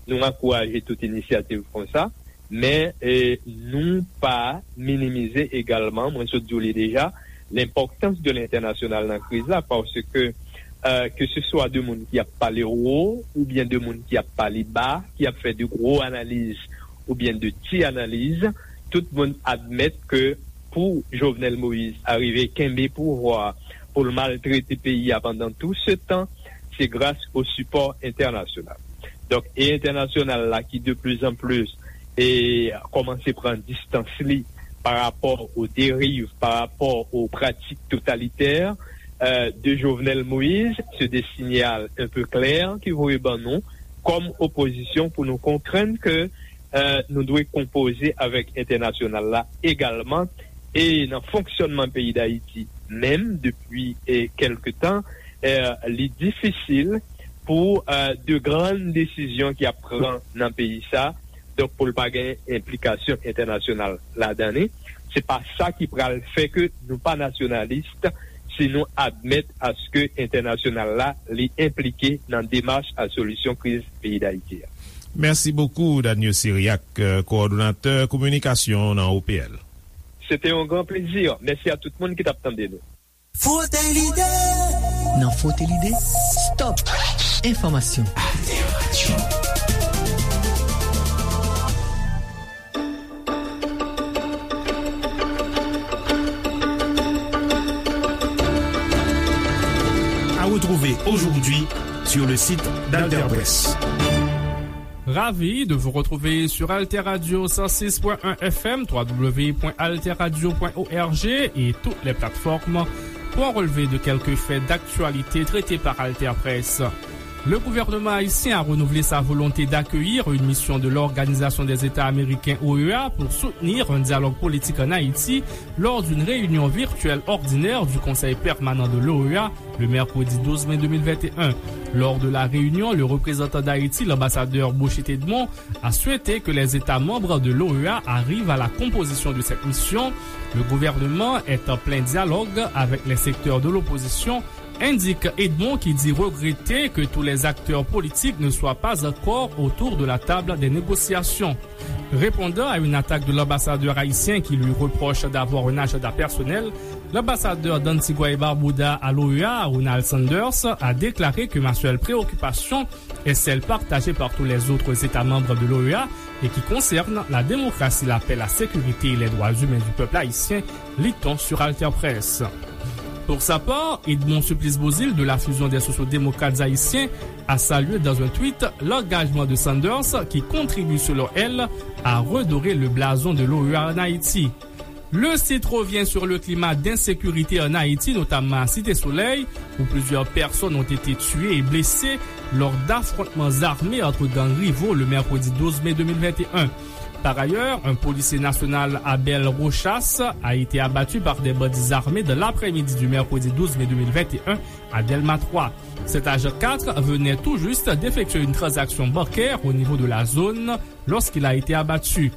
Nou ankouraje tout inisyativ konsa, men, euh, nou pa minimize egalman, mwen sot di w li deja, lenpòtans de lentènasyonal nan kriz la, paske, euh, ke se swa de moun ki ap pale wo, oubyen de moun ki ap pale ba, ki ap fè de gwo analiz, oubyen de ti analiz, tout moun admèt ke pou Jovenel Moïse arive kenbe pouvwa, pou l maltrete peyi a pandan tou se tan, se gras o sipò entènasyonal. Donk, e entènasyonal la ki de plus en plus e kòmanse pran distans li pa rapò o deriv, pa rapò o pratik totalitè, euh, de Jovenel Moïse, se de sinyal un peu clair ki voye ban nou kòm opozisyon pou nou konprann ke, euh, nou dwe konpoze avèk entènasyonal la egalman, e nan fonksyònman peyi Dayiti menm depi, e, kèlke tan, euh, li difisil pou, euh, de grann desizyon ki ap pran nan peyi sa, donk pou l pa gen enplikasyon entènasyonal ladan li. Se pa sa ki pral fè ke nou pa nasyonalis si nou admèt aske entènasyonal la li enplike nan demach a solisyon kriz peyi Dayiti a. Mèsi bokou, Daniel Cyriaque, euh, kowòdonatè kominikasyon nan O P L. Se te yon gran plezi. Mèsi a tout moun ki t ap tande nou. Frote Lide! Nan Frote Lide, stop! Enfòmasyon. Alter Radio. À retrouver aujourd'hui sur le site d'Alter Presse. Ravi de vous retrouver sur Alter Radio cent six point un F M, trois W point alter radio point org et toutes les plateformes pour un relevé de quelques faits d'actualité traités par Alter Presse. Le gouvernement haïtien a renouvelé sa volonté d'accueillir une mission de l'Organisation des États Américains, O E A, pour soutenir un dialogue politique en Haïti lors d'une réunion virtuelle ordinaire du Conseil permanent de l'O E A le mercredi douze mai deux mille vingt et un. Lors de la réunion, le représentant d'Haïti, l'ambassadeur Bouchit Edmond, a souhaité que les États membres de l'O E A arrivent à la composition de cette mission. Le gouvernement est en plein dialogue avec les secteurs de l'opposition, indique Edmond, qui dit regretter que tous les acteurs politiques ne soient pas encore autour de la table des négociations. Répondant à une attaque de l'ambassadeur haïtien qui lui reproche d'avoir un agenda personnel, l'ambassadeur d'Antigua et Barbuda à l'O E A, Ronald Sanders, a déclaré que ma seule préoccupation est celle partagée par tous les autres États membres de l'O E A et qui concerne la démocratie, la paix, la sécurité et les droits humains du peuple haïtien, lit-on sur Alter Presse. Pour sa part, Edmond Supplice Beauzile de la Fusion des sociaux-démocrates haïtiens a salué dans un tweet l'engagement de Sanders qui contribue selon elle à redorer le blason de l'O E A en Haïti. Le site revient sur le climat d'insécurité en Haïti, notamment à Cité Soleil, où plusieurs personnes ont été tuées et blessées lors d'affrontements armés entre gangs rivaux le mercredi douze mai deux mille vingt et un. Par ailleurs, un policier national, Abel Rochas, a été abattu par des bandits armés dans l'après-midi du mercredi douze mai deux mille vingt et un à Delma trois. Cet agent quatre venait tout juste d'effectuer une transaction bancaire au niveau de la zone lorsqu'il a été abattu.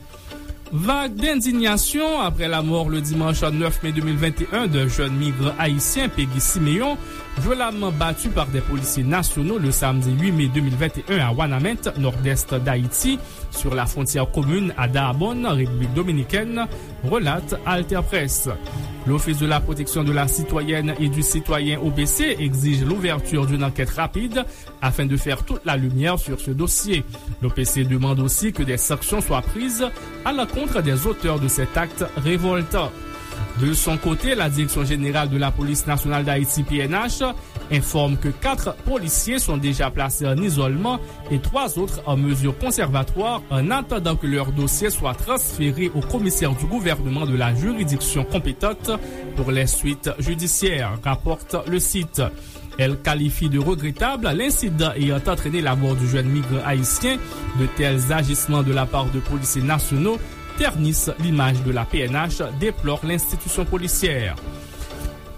Vague d'indignation après la mort le dimanche neuf mai deux mille vingt et un d'un jeune migrant haïtien, Peggy Siméon, violemment battu par des policiers nationaux le samedi huit mai deux mille vingt et un à Wanament, nord-est d'Haïti, sur la frontière commune à Dahbonne, République dominicaine, relate Alter Presse. L'Office de la protection de la citoyenne et du citoyen, O P C, exige l'ouverture d'une enquête rapide afin de faire toute la lumière sur ce dossier. L'O P C demande aussi que des sanctions soient prises à l'encontre des auteurs de cet acte révoltant. De son côté, la Direction générale de la Police nationale d'Haïti, P N H, informe que quatre policiers sont déjà placés en isolement et trois autres en mesure conservatoire en attendant que leur dossier soit transféré au commissaire du gouvernement de la juridiction compétente pour les suites judiciaires, rapporte le site. Elle qualifie de regrettable l'incident ayant entraîné la mort du jeune migrant haïtien. De tels agissements de la part de policiers nationaux ternissent l'image de la P N H, déplore l'institution policière.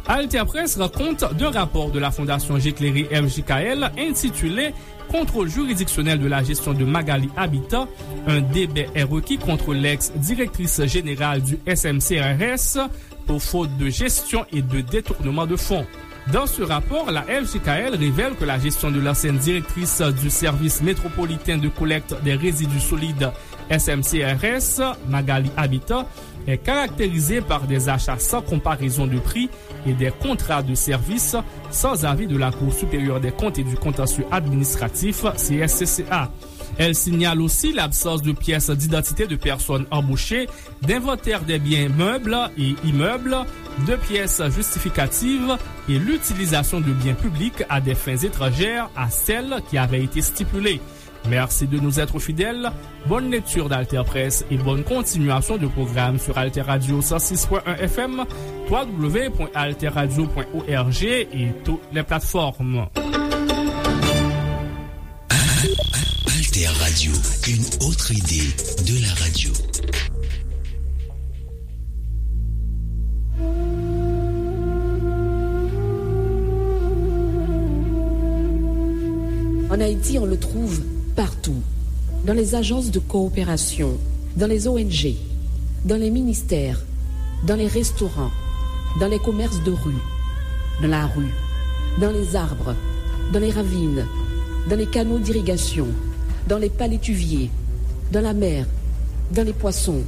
Alter Presse rend compte d'un rapport de la Fondation J'éclairé, F J K L, intitulé Contrôle juridictionnel de la gestion de Magalie Habitat, un débet est requis contre l'ex-directrice générale du S M C R S pour faute de gestion et de détournement de fonds. Dans ce rapport, la F J K L révèle que la gestion de l'ancienne directrice du service métropolitain de collecte des résidus solides, S M C R S, Magalie Habitat, est caractérisée par des achats sans comparaison de prix et des contrats de service sans avis de la Cour supérieure des comptes et du contentieux administratif, C S C C A. Elle signale aussi l'absence de pièces d'identité de personnes embauchées, d'inventaire des biens meubles et immeubles, de pièces justificatives et l'utilisation de biens publics à des fins étrangères à celles qui avaient été stipulées. Merci de nous être fidèles. Bonne lecture d'Alter Presse et bonne continuation de programme sur Alter Radio cent six point un F M, trois W point alter radio point org et toutes les plateformes. Alter Radio, une autre idée de la radio. En Haïti, on le trouve partout. Dans les agences de coopération, dans les O N G, dans les ministères, dans les restaurants, dans les commerces de rue, dans la rue, dans les arbres, dans les ravines, dans les canaux d'irrigation, dans les palétuviers, dans la mer, dans les poissons.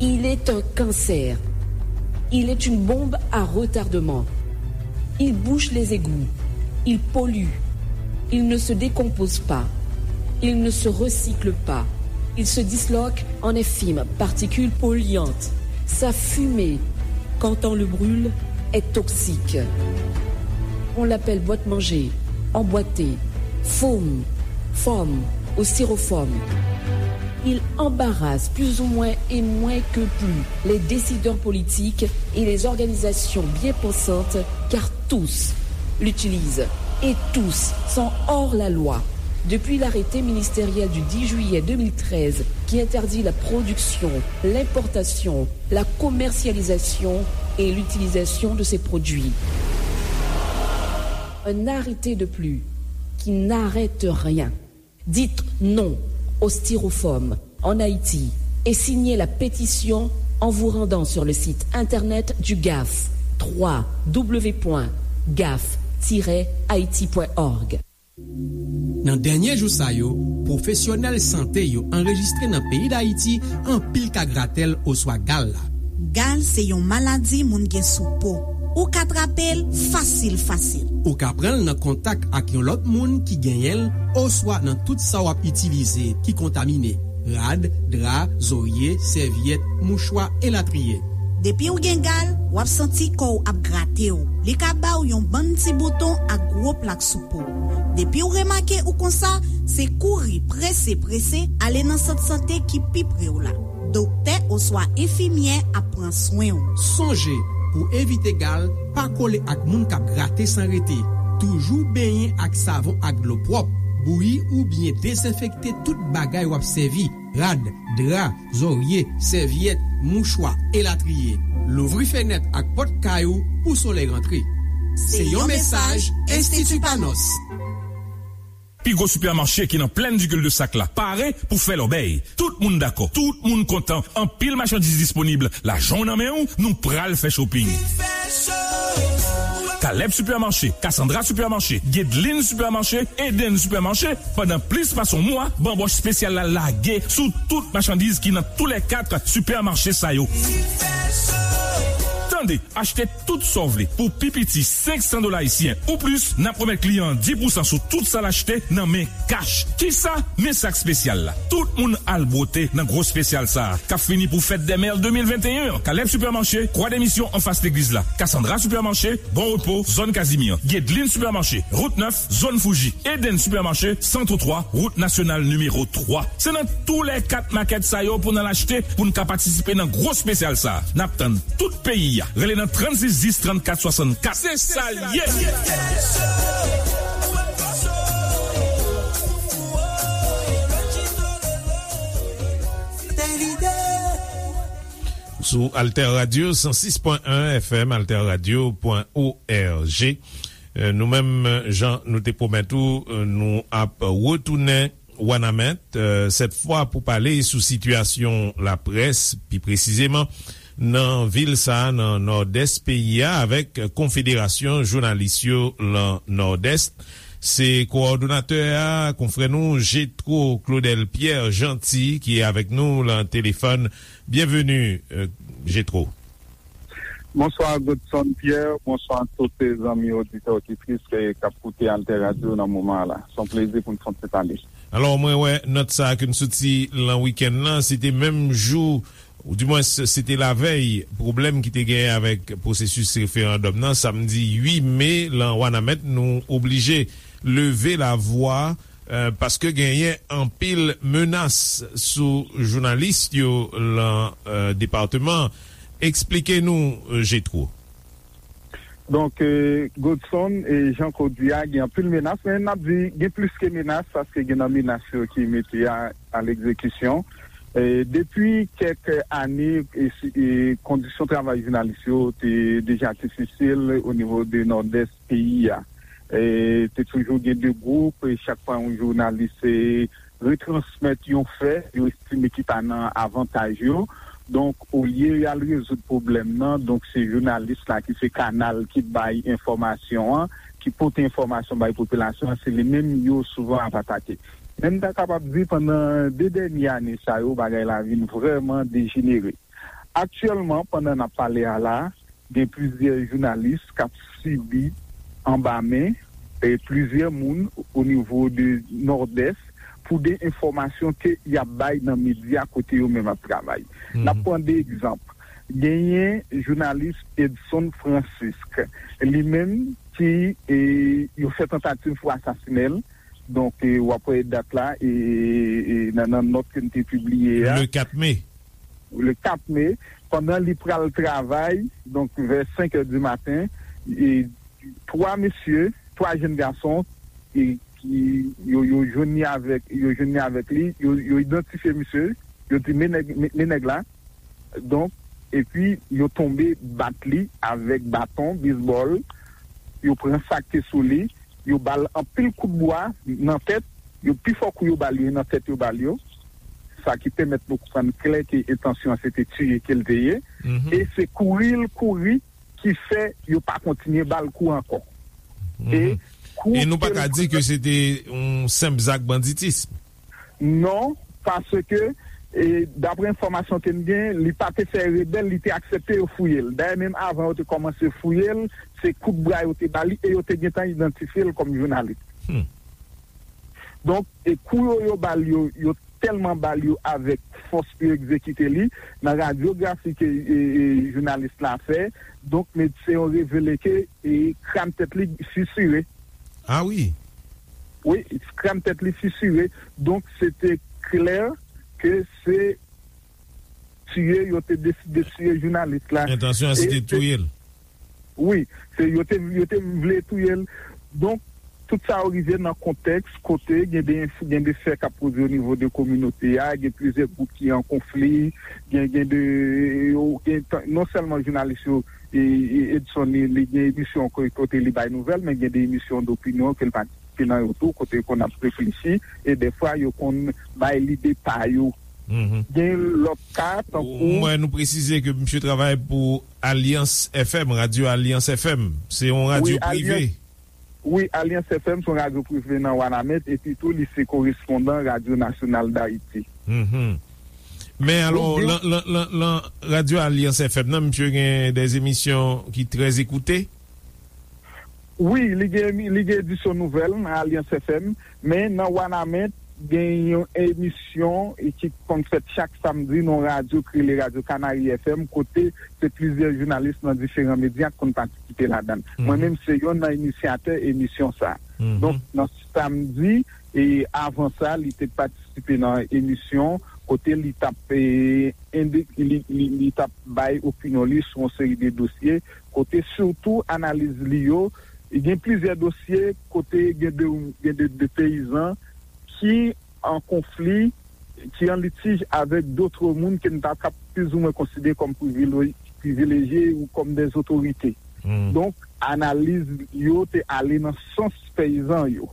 Il est un cancer. Il est une bombe à retardement. Il bouche les égouts. Il pollue. Il ne se décompose pas. Il ne se recycle pas. Il se disloque en effime, particules polluantes. Sa fumée, quand on le brûle, est toxique. On l'appelle boîte-manger, emboîté, foam, foam ou styrofoam. Il embarrasse plus ou moins et moins que plus les décideurs politiques et les organisations bien pensantes, car tous l'utilisent et tous sont hors la loi. Depuis l'arrêté ministériel du dix juillet deux mille treize qui interdit la production, l'importation, la commercialisation et l'utilisation de ces produits. Un arrêté de plus qui n'arrête rien. Dites non au styrofoam en Haïti et signez la pétition en vous rendant sur le site internet du gaf, trois w w w point gaf tiret haïti point org. Nan dènye jou sa yo, pwofesyonèl sante yo anrejistre nan peyi Dayiti anpil ka gratèl oswa gal la. Gal se yon maladi moun gen sou po. Ou ka trape l fasil fasil. Ou ka pran l nan kontak ak yon lòt moun ki genyen l oswa nan tout sa w ap itilize ki kontamine, rad, dra, zorye, sèvyèt, mouchwa, elatriye. Depi w gen gal, w ap santi kò w ap grate w. Li ka ba w yon bann ti bouton ak gwo plak sou po w. Depi w remake ou konsa, se kouri prese prese ale nan sant sante ki pi pre w la. Doktè oswa enfimyè ap pran swen w. Sonje, pou evite gal, pa kole ak moun k ap grate san rete. Toujou benyen ak savon ak dlo pwòp. Bouyi oubyen dezenfekte tout bagay w ap sèvi, rad, dra, zòrye, sèvyèt, mouchwa, elatriye. Louvri fenèt ak pòt kay ou pou solèy rantre. Se yon mesaj Enstiti Panos. Pi gwo sipèmache ki nan Plèn Digil de Sak la pare pou fè lòbèy. Tout moun dakò, tout moun kontan. Anpil machandiz disponib. Lajan w nan men w, nou pral fè shopping. Kalèb Sipèmache, Cassandra Sipèmache, Guedeline Sipèmache, Eden Sipèmache, pandan plis pase yon mwa, banbòch espesyal la lage sou tout machandiz ki nan toulèkat sipèmache sa yo. Tande, achte tout sa w vle pou pi piti senk san dola ayisyen ou plis, n ap remèt kliyan an dis pousan sou tout sa l achte nan men kach. Kisa? Men sa k espesyal la. Tout moun al bwote nan gwo espesyal sa a, k ap fini pou Fèt dè Mè de mil venteyen an. Kalèb Sipèmache, Kwa de Misyon anfas legliz la. Cassandra Sipèmache, Bon Repo, zòn Kazimyè. Guedeline Sipèmache, Wout nèf, zòn Fouji. Eden Sipèmache, san twa twa, Wout Nasyonal nimewo twa. Se nan toulèkat makèt sa yo pou n al achte, pou n ka patisipe nan gwo espesyal sa a. N ap tann tout peyi a. Rele nan trannsis dis trannkat swasannkat. Se sa l ye! Sou Alter Radio san sis pwen en F M, alter radio pwen O R G. Euh, nou menm, jan nou te pwomèt ou, euh, nou ap retounen Wanament, euh, sèt fwa pou pale sou sitiyasyon laprès, pi presizeman nan vil sa a, nan Nòdès peyi a, avèk Konfederasyon Jounalis yo lan Nòdès. Se kowòdonatè a, konfrè nou Jetro Claudel Pierre Gentil, ki avèk nou lan telefòn. Byenveni, euh, Jetro. Bonswa, Godson Pierre. Bonswa tout zanmi oditè, oditris, eh, k ap koute Alter Radio nan moman an la. Se yon plezi pou n fè yon ti pale. Alò, mwen wè nòt sa a ke n soti lan wikenn nan, se te menm jou, oudimwens, se te lavèy pwoblèm ki te genyen avèk pwosesis referandòm nan, samdi uit me, lan Wanament, nou oblije leve lavwa, euh, paske genyen anpil menas sou jounalis yo lan, euh, depatman. Eksplike nou, euh, Jetro. Donk, euh, Godson, e jan ke w di a, gen anpil menas, men n ap di gen plis ke menas, paske gen nan menas yo ki mete a, a legzekisyon. E depi kèk ane, e si, e kondisyon travay jounalis yo te deja difisil o nivo de Nòdès peyi a. E te toujou gen de gwoup, e chak fwa yon jounalis, e, retransmèt yon fè, yo estime ki pa nan avantaj yo. Donk, olye y al rezoud pwoblèm nan, donk se jounalis la ki se kanal ki bay enfòmasyon an, ki pote enfòmasyon bay popilasyon an, se li menm yo souvan ap atake. Men m ta kapab di pandan de dènye ane sa yo, bagay la vin vrèman dejenere. Aktyèlman, pandan n ap pale a la, gen plizyè jounalis k ap sibi anba men e plizyè moun o nivo de Nòdès pou de enfòmasyon ke y ap bay nan medya kote yo menm ap travay. N ap pran de egzanp. Genyen jounalis Edson Francisque, li menm ki e, yo fè tantativ pou asasinen l. Donk, e, w ap wè dat la e, e, e, nan, nan nòt ke n te pibliye a. Le kat me. Le kat me, pandan li pral travay, donk vè senk è di maten, e, twa mesye, twa jèn gason, e, ki, yo, yo jwenn li avèk, yo jwenn li avèk li, yo, yo idantifye misye, yo di, "Men nèg, men, men nèg la." Donk, epi yo tonbe bat li avèk baton, bisbòl, yo pran sa k te sou li, yo ba l anpil kout bwa nan tèt, yo pi fò kou yo ba l yo, e nan tèt yo ba l yo. Sa ki pèmèt nou konprann klè ke entansyon an se te tiye ke l te ye. E se kouri l kouri ki fè yo pa kontinye ba l kou ankò. E kou E nou pa ke l ka di ke se te yon senp zak banditis. Non, paske, e, daprè enfòmasyon ke n gen, li pa te fè rebèl, li te aksepte yo fouye l. Dayè, menm avan yo te kòmanse fouye l, se kout bra yo te ba li e yo te gentan idantifye l kòm jounalis. Donk, e kou yo, yo ba l yo, yo tèlman ba l yo avèk fòs pou yo egzekite li. Nan radyografi ke, e, e, jounalis la fè, donk, medsen yo revele ke, e, kràn tèt li fisire. Ah wi. Wi, kràn tèt li fisire. Donk, se te klè ke se tiye, yo te deside tiye jounalis la. Entansyon an se te touye l. Wi, se yo te, yo te vle touye l. Donk, tout sa yo rive nan kontèks kote gen de, gen de fè k ap pwodui o nivo de kominote a, gen plizyè gwoup ki an konfli, gen, gen de, yo, gen tan, non sèlman jounalis yo, e, e, Edson, li, li gen emisyon kote, kote li bay nouvèl, men gen de emisyon dopinyon ke l patisipe nan yo tou, kote yo konn ap reflechi, e dèfwa yo konn bay lide pa yo. Gen lòt ka, tankou M wè nou presize ke misye travay pou Alyans F M, radyo Alyans F M. Se yon radyo Wi, prive. Alyans, wi, Alyans F M se yon radyo prive nan Wanament, epi tou li se korespondan Radyo Nasyonal Dayiti. Men alò, Donk, gen lan, lan, lan, lan radyo Alyans F M nan, misye gen de emisyon ki trè ekoute. Wi, li gen, li gen edisyon nouvèl nan Alyans F M, men nan Wanament, gen yon emisyon ki konn fèt chak samdi nan radyo ki rele Radyo Kanari F M, kote se plizyè jounalis nan diferan medya ki konn patisipe ladan l. Mwen menm, se youn nan inisyatè emisyon sa a. Donk, nan samdi, e avan sa, li te patisipe nan emisyon kote li t ap, e, ende-, li, li, li t ap bay opinyon li sou yon seri de dosye, kote sitou analiz li yo, gen plizyè dosye kote gen de, gen de, de peyizan ki an konfli, ki an litij avèk dòt moun ke n ta kab plizoumwen konsidere kòm privilè-, privilejye ou kòm dè otorite. Donk, analiz yo te ale nan sans peyizan yo.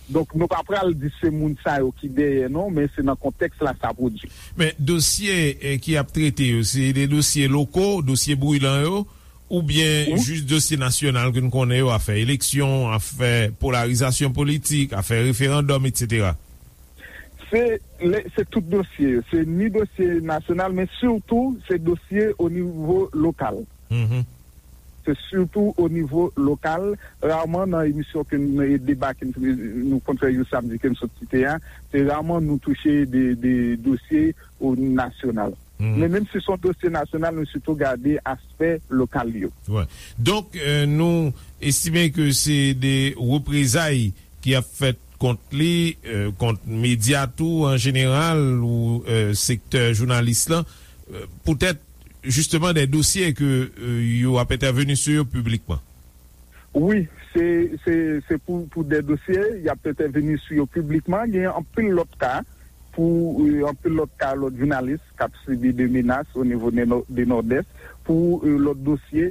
Donk, nou pa pral di se moun sa yo ki dèyè, non, men se nan kontèks la sa pwodui. Men dosye, eh, ki ap trete yo, se de dosye loko, dosye brilan yo, oubyen jis dosye nasyonal ke n konnen yo, afè eleksyon, afè polarizasyon politik, afè referandòm, etsetera? Se, le, se tout dosye yo. Se ni dosye nasyonal, men sitou se dosye o nivo lokal. Se sitou o nivo lokal. Raman nan emisyon ke n, e deba ke n, nou konn fè jou samdi ke m sot site a, se raman nou touche de, de dosye o nasyonal. Men menm si se yon dosye nasyonal, nou sitou gade aspè lokal yo. Wè. Donk, eh, nou estime ke se de reprezay ki ap fèt kont li, eh, kont medya tou an jeneral ou, eh, sektè jounalis lan, eh, poutèt jisteman de dosye ke, eh, yo ap entèveni sou yo piblikman. Wi, se, se, se pou, pou de dosye, y ap entèveni sou yo piblikman. Gen anpil lòt ka, pou, eh, anpil lòt ka, lòt jounalis k ap sibi de menas o nivo de Nò-, de Nòdès, pou, eh, lòt dosye,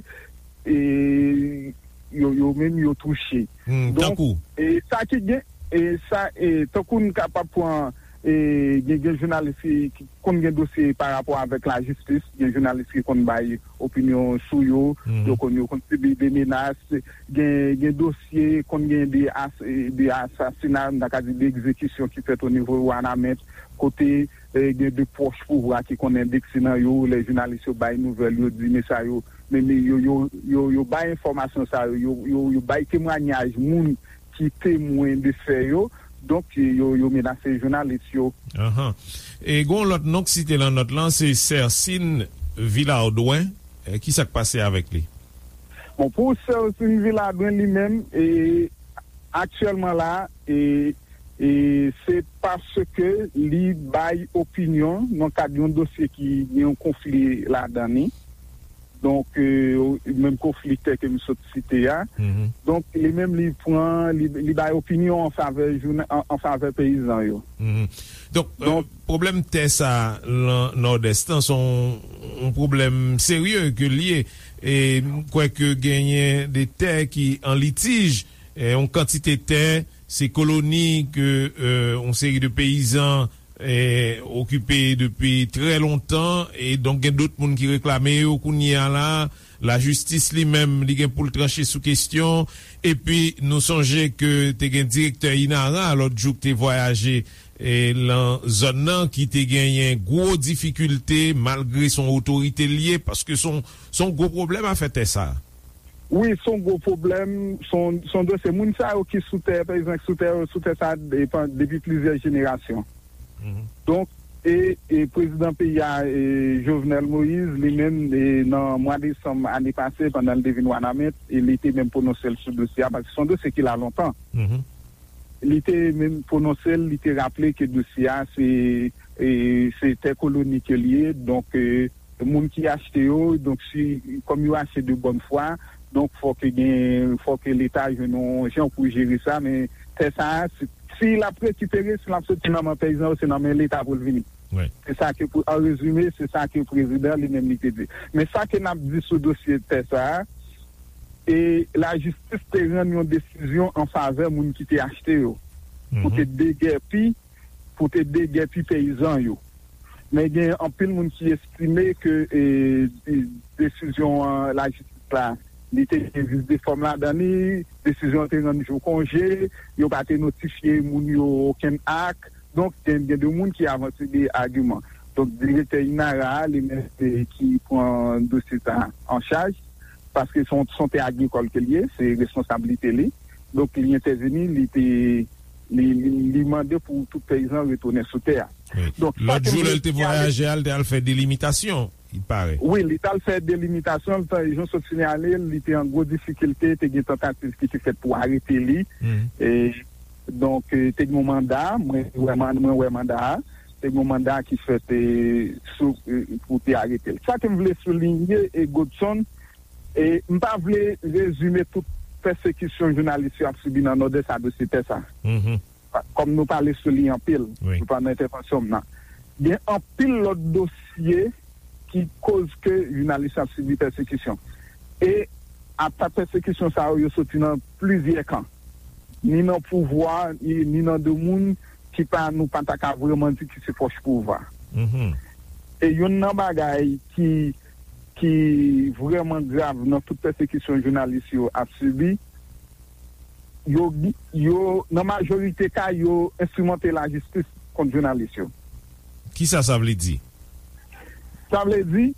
eh, yo, yo menm yo touche. Donk, tankou? Eh, sa ki gen, eh, sa, eh, tankou n kapab pran, e, gen, gen jounalis ki, ki konn gen dosye pa rapò avèk lajistis, gen jounalis ki konn bay opinyon sou yo, yo konn, yo konn sibi de menas, gen, gen dosye, konn gen de as-, de asasina, m ta ka di de egzekisyon ki fèt o nivo Wanament, kote, e, gen de pwòch pouvwa ki konn endekse nan yo, lè jounalis yo bay nouvèl, yo di, men sa yo, men, men yo, yo, yo, yo bay enfòmasyon sa yo, yo, yo, yo bay temwayaj moun ki temwen de fè yo, donk, yo, yo menase jounalis yo. Ahan. E gen yon lòt non k site lan nòt lan, se Sèsin Vilardwen. E, ki sa k pase avèk li? Bon, pou Sèsin Vilardwen li menm, e, aktyèlman la, e, e se paske li bay opinyon nan kad yon dosye ki gen yon konfli ladan li. Donk, e, menm konfli tè ke m sot site a. Donk, li menm, li pran, li, li bay opinyon an favè jounen, an, an favè peyizan yo. Donk, e, pwoblèm tè sa lan Nòdès lan, se yon, yon pwoblèm serye ke l ye. E m kwè ke genyen de tè ki an litij, e, yon kantite tè, se koloni ke, e, yon seri de peyizan e, okipe depi trè lontan, e donk gen dòt moun ki reklame yo kounye a la. Lajistis li menm, li gen pou l tranche sou kesyon. Epi, nou sonje ke te gen direktè INARA lòt jou ki te vwayaje, e, lan zòn nan, ki te genyen gwo difikilte, malgre se yon otorite l ye, paske se yon, se yon gwo pwoblèm afè tè sa. Wi, se yon gwo pwoblèm, se yon, se yon dosye. Moun sa yo ki sou tè, pa egzanp, sou tè, sou tè sa depi, depi plizyè jenerasyon. Donk, e, e prezidan peyi a, e, Jovenel Moïse, li menm, e, nan mwa desanm ane pase, pandan l te vin Wanament, e li te menm pwononse l sou dosye a, paske se yon dosye ki la lontan. Li te menm pwononse l, li te raple ke dosye a, se, e, se tè koloni ke l ye, donk, e, moun ki achte yo, donk si, kòm yo achte de bòn fwa, donk fò ke gen, fò ke Leta jwenn yon jan pou jere sa, men tè sa a, si, si l ap rekipere, si l ap soti nan men peyizan yo, se nan men Leta pou l vini. Se sa ke, pou, an rezime, se sa ke prezidan li menm li te di. Men sa ke n ap di sou dosye tè sa a, e lajistis te rann yon desizyon an favè moun ki te achte yo, pou te degèpi, pou te degèpi peyizan yo. Men gen anpil moun ki estime ke, e, de-, desizyon an lajistis la, li te gen vis de fòm ladan li, desizyon an te rann jou konje, yo pa te notifye moun yo okenn ak. Donk, gen, gen de moun ki avanse de agiman. Donk, direktè INARA a, li menm, e, ki pran dosye sa an chaj, paske se yon, se yon tè agrikòl ke l ye, se responsablite li. Donk, li entèvini, li te, li, li, li mande pou tout peyizan retounen sou tè a. Donk, lòt jou, lè l te vwayaje a, l te al fè delimitasyon, il paraît. Wi, li t al fè delimitasyon, l te, jan sot sinyale, li te an gwo difikilte, te gen tantativ ki te fèt pou arete li. E, donk, e, te gen yon manda, mwen wè man-, mwen wè manda a, te gen yon manda ki fèt, e, sou, e, pou te arete l. Sa ke m vle soulinye, e, Godson, e, m pa vle rezime tout pèsekisyon jounalis yo ap sibi nan Nòdès a dosye tè sa. Kòm nou pale sou li anpil, pandan entèvansyon m nan, gen anpil lòt dosye ki koz ke jounalis yo ap sibi pèsekisyon. E atak pèsekisyon sa yo, yo soti nan plizyè kan. Ni nan pouvwa, ni, ni nan de moun ki pa, nou pa ta ka vrèman di ki se pwòch pouvwa. E youn nan bagay ki, ki vrèman grav nan tout pèsekisyon jounalis yo ap sibi, yo, yo, nan majorite ka, yo enstrimante lajistis kont jounalis yo. Kisa sa vle di? Sa vle di,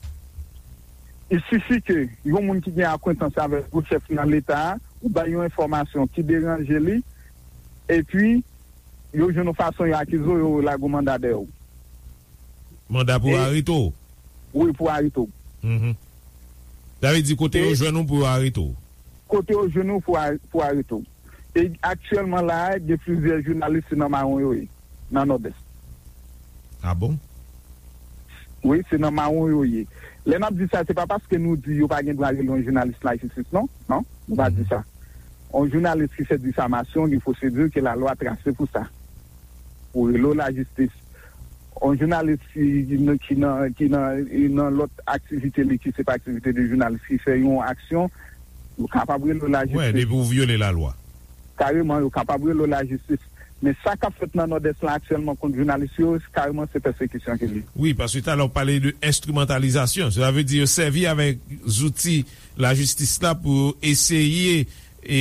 il sifi ke yon moun ki gen akwentans avèk gwo chèf nan Leta a, ou bay yon enfòmasyon ki deranje li, epi yo jwenn yon fason yo akize w, yo lage yon manda dèyè w. Manda pou arete w? Wi, pou arete w. Sa vle di kote yo jwenn ou pou yo arete w? Kote yo jwenn ou pou a-, pou arete w. E aktyèlman la a, gen plizyè jounalis se nan mawon yo ye, nan Nòdès. Ah bon? Wi, se nan mawon yo ye. Lè n ap di sa, se pa paske nou di yo pa gen dwa rele yon jounalis lajistis, non. Non, nou pa di sa. Yon jounalis ki fè difamasyon, gen pwosedi ke lalwa trase pou sa. Pou rele w lajistis. Yon jounalis ki, ki nan, ki nan, ki nan, nan lòt aktivite li ki se pa aktivite de jounalis, ki fè yon aksyon, yo kapab rele w lajistis. Wè, depi w vyole lalwa. Kareman, yo kapab rele w lajistis. Men sa k ap fèt nan Nòdès la aktyèlman kont jounalis yo, kareman se pèsekisyon ke li. Wi, paske talè w pale de enstrimantalizasyon. Sa vle di yo sèvi avèk zouti lajistis la pou eseye e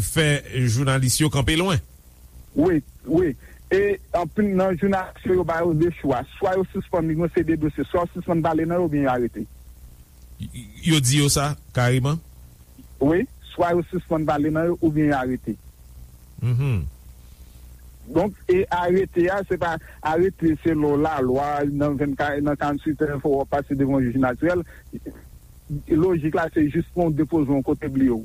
fè jounalis yo kanpe lwen. Wi, wi. E anpil nan jounalis yo, yo ba yo de chwa. Swa yo sispann li, yo se de dosye, swa yo sispann pale nan yo oubyen yo arete. Y- Yo di yo sa, kareman? Wi, swa yo sispann pale nan yo oubyen yo arete. Mhm. Donk, e arete a, se pa arete selon lalwa, nan vennkat, nan karanntuit è, fò w pase devan yon jij natirèl. Lojik la, se jis pou yon depoze yon kote bliye w.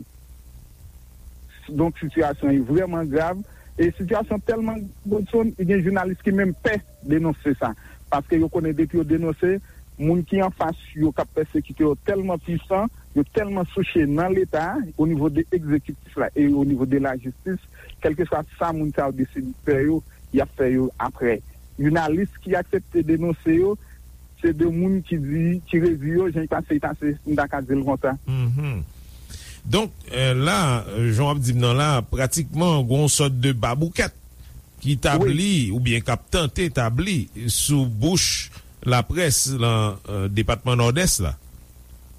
Donk, sitiyasyon an vrèman grav. E sitiyasyon tèlman grav, Godson, gen jounalis ki menm pè denonse sa. Paske yo konnen depi yo denonse, moun ki anfas yo k ap pèsekite yo tèlman pwisan, yo tèlman souche nan Leta, o nivo de egzekitif la e o nivo de lajistis, kèlkeswa sa moun sa yo deside fè yo, y ap fè yo apre. Jounalis ki aksepte denonse yo, se de moun ki di, ki redi yo, jan l pase, l pase, m ta ka di l konsa. Mhm. Donk, eh, la, jan w ap di m nan la, pratikman, gen yon sòt de baboukèt ki tabli, oubyen k ap tante tabli sou bouch laprès lan, eh, depatman Nòdès la.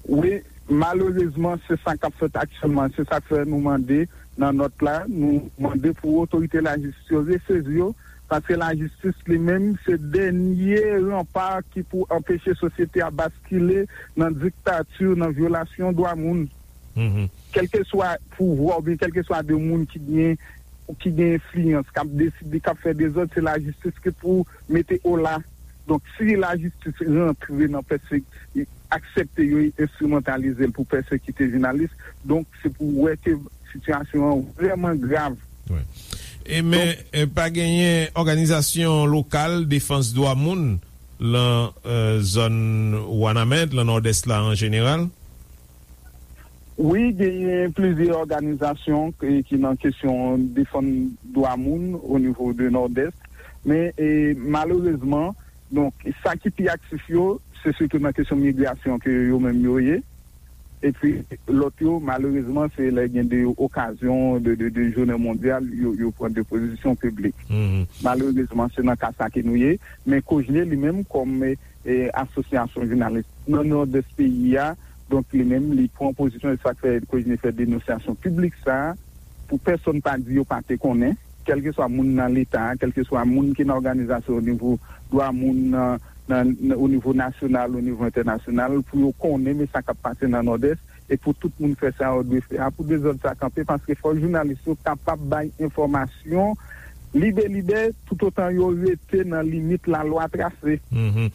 Wi, malerezman, se sa k ap fèt aktyèlman. Se sa k fè nou mande nan nòt la, nou mande pou otorite lajistis yo resezi yo, paske lajistis li menm se dènye ranpa ki pou anpeche sosyete a baskile nan diktati, nan vyolasyon dwa moun. Mhm. Kèlkeswa pouvwa oubyen kèlkeswa de moun ki gen, ki gen enfliyans, k ap deside, k ap fè dezòd, se lajistis ki pou mete ola. Donk, si lajistis rantre nan pèse-, aksepte yo enstrimantalize l pou pèsekite jounalis, donk, se pou wè ke sitiyasyon an vrèman grav. Wi. E men, Donk, eh, pa genyen òganizasyon lokal defans dwa moun lan, eh, zòn Wanament, lan Nòdès la an jeneral? Wi, genyen plizyè òganizasyon ki, ki nan kesyon defann dwa moun o nivo de Nòdès. Men, eh, malerezman, donk, sa ki pi aktif yo, se sitou nan kesyon migrasyon ke yo menm yo ye. Epi, lòt yo, malerezman, se lè gen de okazyon de, de, de jounen mondyal, yo, yo pran de pozisyon piblik. Mhm. Malerezman, se nan ka sa ke nou ye. Men Kojne li menm, kòm, eh, eh, asosyasyon jounalis nan Nòdès peyi a, donk, li menm, li pran pozisyon, e sa k fè Kojne fè denonsasyon piblik sa a, pou pèsonn pa di yo pa te konnen, kèlkeswa moun nan Leta a, kèlkeswa moun ki nan òganizasyon o nivo dwa moun nan, nan, nan, o nivo nasyonal, o nivo entènasyonal, pou yo konnen men sa k ap pase nan Nòdès, e pou tout moun fè sa yo dwe fè a, pou dezòd sa kanpe, paske fò jounalis yo kapab bay enfòmasyon libelibè, toutotan yo rete nan limit lalwa trase. Mhm.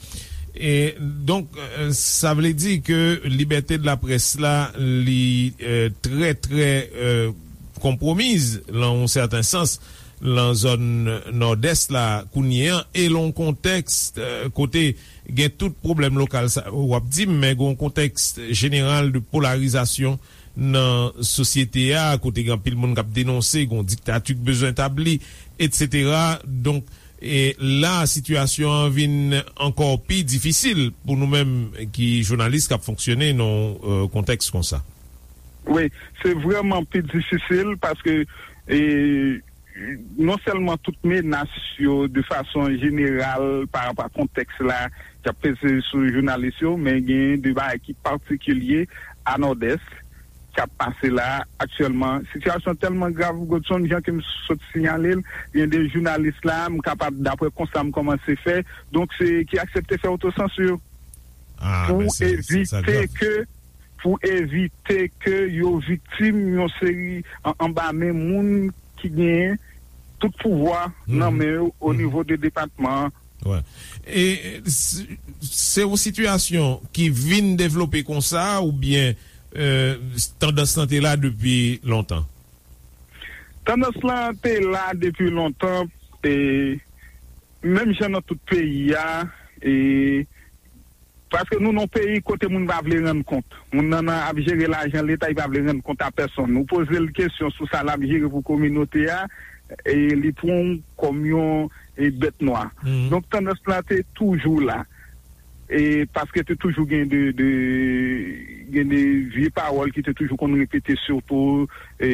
E, donk, eh, sa vle di ke libète de laprès la, li, eh, trè, trè, eh, konpwomiz, lan yon sèten sans, lan zòn Nòdès la kounye an, e lan yon kontèks, eh, kote gen tout pwoblèm lokal sa w ap di m, men gen yon kontèks jeneral de polarizasyon nan sosyete a, kote gen anpil moun k ap denonse, gen yon diktati k bezwen tabli, etsetera. Donk, e la, sitiyasyon an vin ankò pi difisil pou nou menm ki jounalis k ap fonksyone nan yon, eh, kontèks konsa. Wi, se vrèman pi difisil paske, eh, non sèlman tout menas yo de fason jeneral pa rapò a kontèks la k ap peze sou jounalis yo, men gen de bagay ki patikilye a Nòdès k ap pase la aktyèlman. Sitiyasyon tèlman grav, Godson, jan ke m sot siyale l, gen de jounalis la, m kapab, daprè konsta m kòmanse fè, donk se ki aksepte fè otosansi yo. Ah, pou men se, se, sa evite grav. Ke, pou evite ke yo viktim yon seri an, anba men moun ki genyen tout pouvwa nan men yo o nivo de depatman an. Wè. E, e, se, se yon sitiyasyon ki vin devlope konsa oubyen, eh, tandans lan te la depi lontan? Tandans lan te la depi lontan, e menm jan nan tout peyi a, e paske nou nan yon peyi kote moun pa vle rann kont. Moun nan, nan ap jere lajan Leta, li pa vle rann kont a pèsonn. Ou poze l kesyon sou sa l ap jere pou kominote a, e li pran w kòm yon, e, bèt nwa. Mhm. Donk, tandans la te toujou la. E paske te toujou gen de, de gen de vye pawòl ki te toujou konn repete, sitou e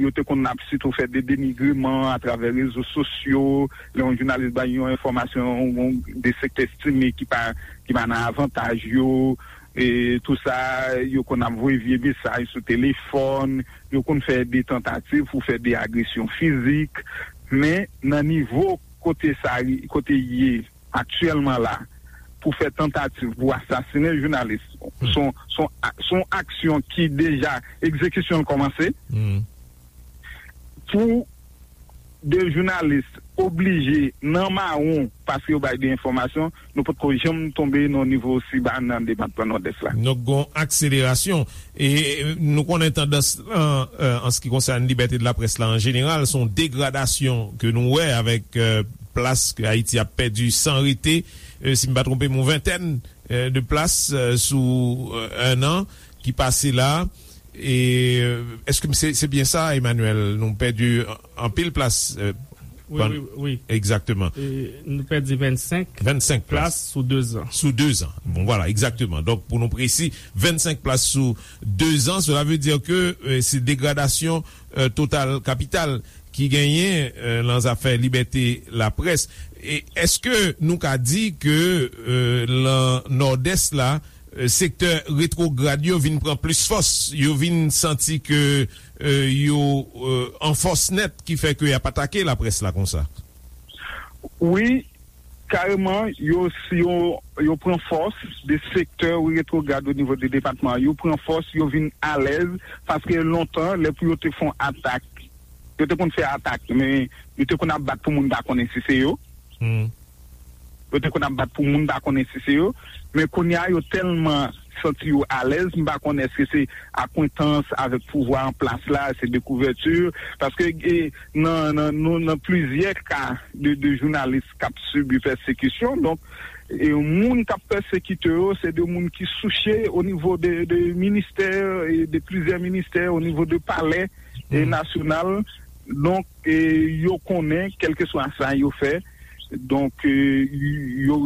yo te konn ap sitou fè de denigreman atravè rezo sosyo. Lè yon jounalis bay yon enfòmasyon, yon de sektè estime ki pa ki pa nan avantaj yo, e tou sa, yo konn ap voye vye mesaj sou telefòn, yo konn fè de tantativ pou fè de agresyon fizik. Men nan nivo kote sa kote ye aktyèlman la, pou fè tantativ pou asasinen jounalis, se yon se yon a- se yon aksyon ki deja egzekisyon l kòmanse. Pou de jounalis oblije nan mawon paske yo bay de enfòmasyon, nou potko janm tonbe nan nivo osi ba nan depatman Nòdès la. Donk, gon akselerasyon. E nou konnen tandans lan, euh, an se ki konsène libète de laprès la an jeneral, se yon degradasyon ke nou wè avèk euh, plas ke Ayiti ap pèdi san rete, euh, si m pa twonpe m, yon ventèn euh, de plas euh, sou euh, un an ki pase la. E euh, èske se se byen sa, Emmanuel? Nou pèdi an- anpil plas euh, Wi, wi, wi. Egzakteman. E nou pèdi vennsenk vennsenk plas plas sou dezan. Sou dezan. Bon, vwala, egzakteman. Donk, pou nou presi, vennsenk plas sou dezan. Sela vle di ke euh, se degradasyon euh, total kapital ki genyen euh, nan zafè libète laprès. E èske nou ka di ke euh, lan Nòdès la, euh, sektè retwograd yo vin pran plis fòs, yo vin santi ke euh, yo euh, an fòs nèt ki fè ke y ap atake laprès la konsa? Wi, kareman, yo, yo, yo pran fòs de sektè retwograd o nivo de depatman. Yo pran fòs, yo vin alèz, paske lontan, lè pou yo te fè yon atak, yo te konn fè atak, men yo te konn ap bat pou moun pa konnen si se yo. Yo te konn ap bat pou moun pa konnen si se yo. Men kounye a, yo tèlman santi yo alèz, m pa konnen èske se akwentans avèk pouvwa an plas la, se dekouvèti, paske e, nan, nan, nou, nan plizyè ka de, de jounalis k ap sibi pèsekisyon. Donk, e moun k ap pèsekite yo, se de moun ki souche o nivo de, de ministè, e de plizyè ministè, o nivo de palè e nasyonal. Donk, e yo konnen, kèlkeswa sa yo fè, donk, e yo,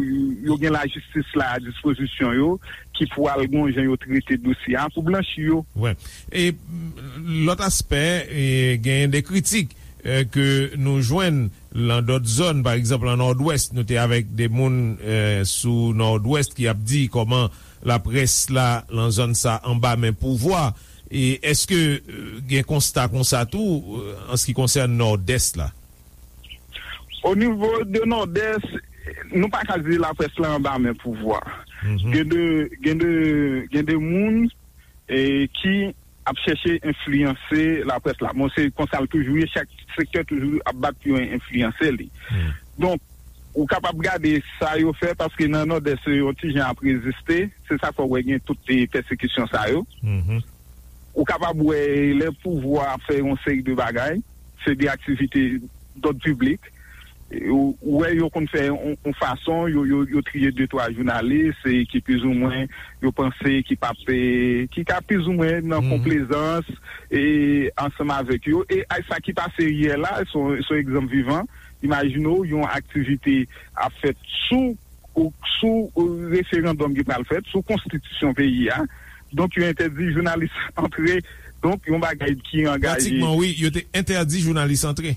yo gen lajistis la a dispozisyon yo, ki pwal gon jan yo trete dosye a pou blanchi yo. Wi. E lòt aspè, e, genyen de kritik e, ke nou jwenn lan dòt zòn, pa egzanp, lan Nòdwès, nou te avèk de moun e, sou Nòdwès ki ap di kòman laprès la lan zòn sa anba men pouvwa. E èske e, gen konsta konsa tou e, an se ki konsène Nòdès la? O nivo de Nòdès, nou pa ka di laprès la anba men pouvwa. Gen de, gen de, gen de moun e, ki ap chèche enfliyanse laprès la. Bon, se konsa l toujou ye, chak sektè toujou ap bat pou yo enfliyanse li. Donk, ou kapab gade sa yo fè, paske nan Nòdès yo, yon ti jan ap reziste, se sa k fè w wè gen tout e, pèsekisyon sa yo. Ou kapab wè lè pouvwa ap fè yon seri de bagay, se de aktivite dòd piblik. Ou wè yo konn fè yon fason, yo, yo, yo triye de twa jounalis e ki plizoumwen yo panse ki p ap, e, ki ka plizoumwen nan konplezans e ansanm avèk yo. E sa ki pase yè la, se yon egzanp vivan. Imajine w, yon aktivite ap fèt sou sou referandòm ki pral fèt, sou konstitisyon peyi a. Donk, yo entèdi jounalis antre. Donk, yon bagay ki angaje. Pratikman, wi, yo te entèdi jounalis antre.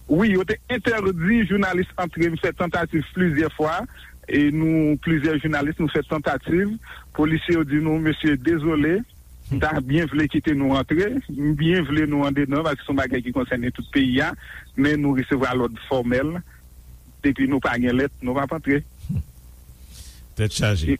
Wi, yo te entèdi jounalis antre. M fè tantativ plizyè fwa, e nou, plizyè jounalis, nou fè tantativ. Polisye yo di nou, mesye, dezole, m ta byen vle kite nou antre, m byen vle nou andedan, paske se yon bagay ki konsène tout peyi a, men nou resevwa lòd fòmèl, depi nou pa gen lèt, nou p ap antre. Tèt chaje.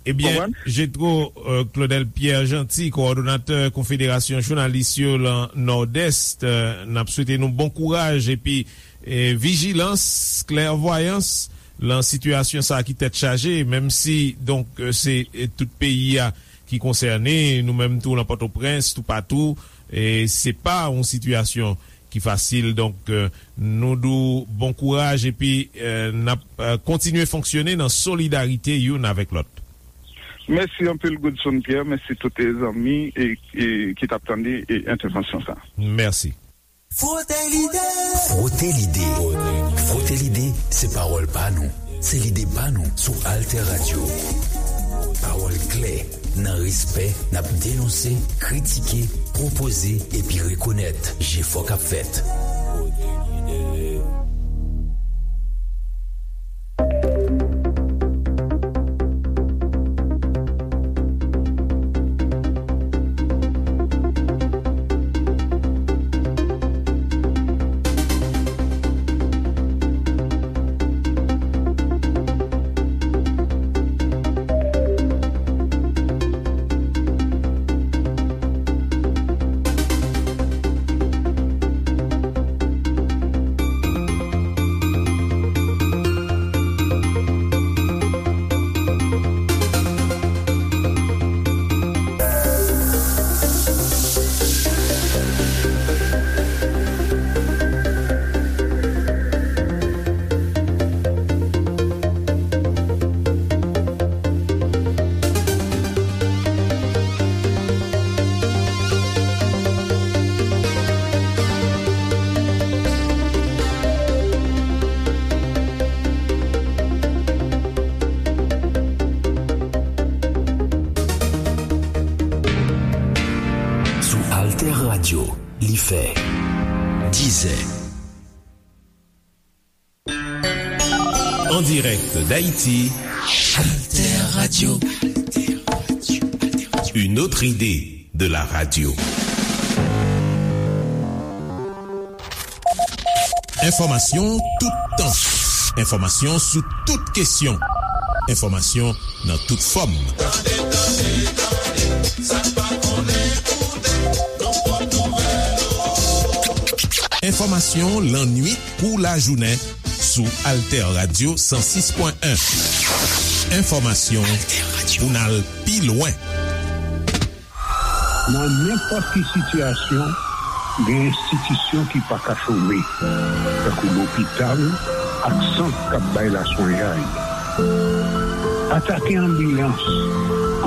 Ebyen, Jetro euh, Claudel Pierre Jeanty, kowòdonatè Konfederasyon Jounalis yo lan Nòdès, euh, n ap swete nou bon kouraj epi eh, vijilans, klèvwayans lan sitiyasyon sa a ki tèt chaje, menm si, donk, eh, se eh, tout peyi a ki konsène, nou menm tou lan Pòtoprens, toupatou, eh, se pa yon sitiyasyon ki fasil. Donk, eh, nou di w bon kouraj epi eh, n ap eh, kontinye fonksyone nan solidarite youn avèk lòt. Mèsi anpil, Godson Pierre. Mèsi tout zanmi e, e, ki t ap tande e, entèvansyon sa. Mèsi. Frote Lide. Frote Lide. Frote Lide, se pawòl pa nou. Se lide pa nou sou Alter Radio. Pawòl klè, nan respè, n ap denonse, kritike, pwopoze epi rekonèt jefò k ap fèt. Sou Alter Radio, li fè dizè. En direct d'Haïti, Alter Radio. Une autre idée de la radio. Enfòmasyon toutan. Enfòmasyon sou tout kesyon. Enfòmasyon nan tout fòm. Tande, tande, tande, sa n pa konnen koute, nan pòt nouvèl. Enfòmasyon lannuit kou lajounen sou Alter Radio san sis pwen en. Enfòmasyon pou n al pi lwen. Nan nenpòt ki sitiyasyon, gen enstitisyon ki pa ka chome, tankou lopital ak sant k ap bay laswenyay. Atake anbilans,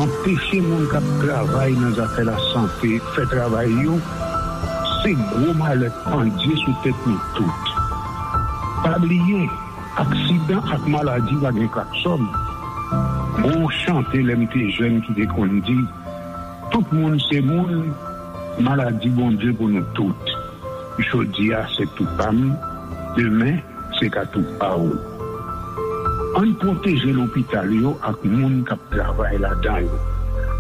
anpeche moun k ap travay nan zafè lasante fè travay yo, se gwo malè k pandye sou tèt nou tout. Pa bliye, aksidan ak maladi pa gen klaksòn. Gon chante lè m te jèn ki te konn di, tout moun se moun, maladi Bondye pou nou tout. Jodi a se tou pa m, demen se ka tou pa w. Ann pwoteje lopital yo ak moun k ap travay ladan yo.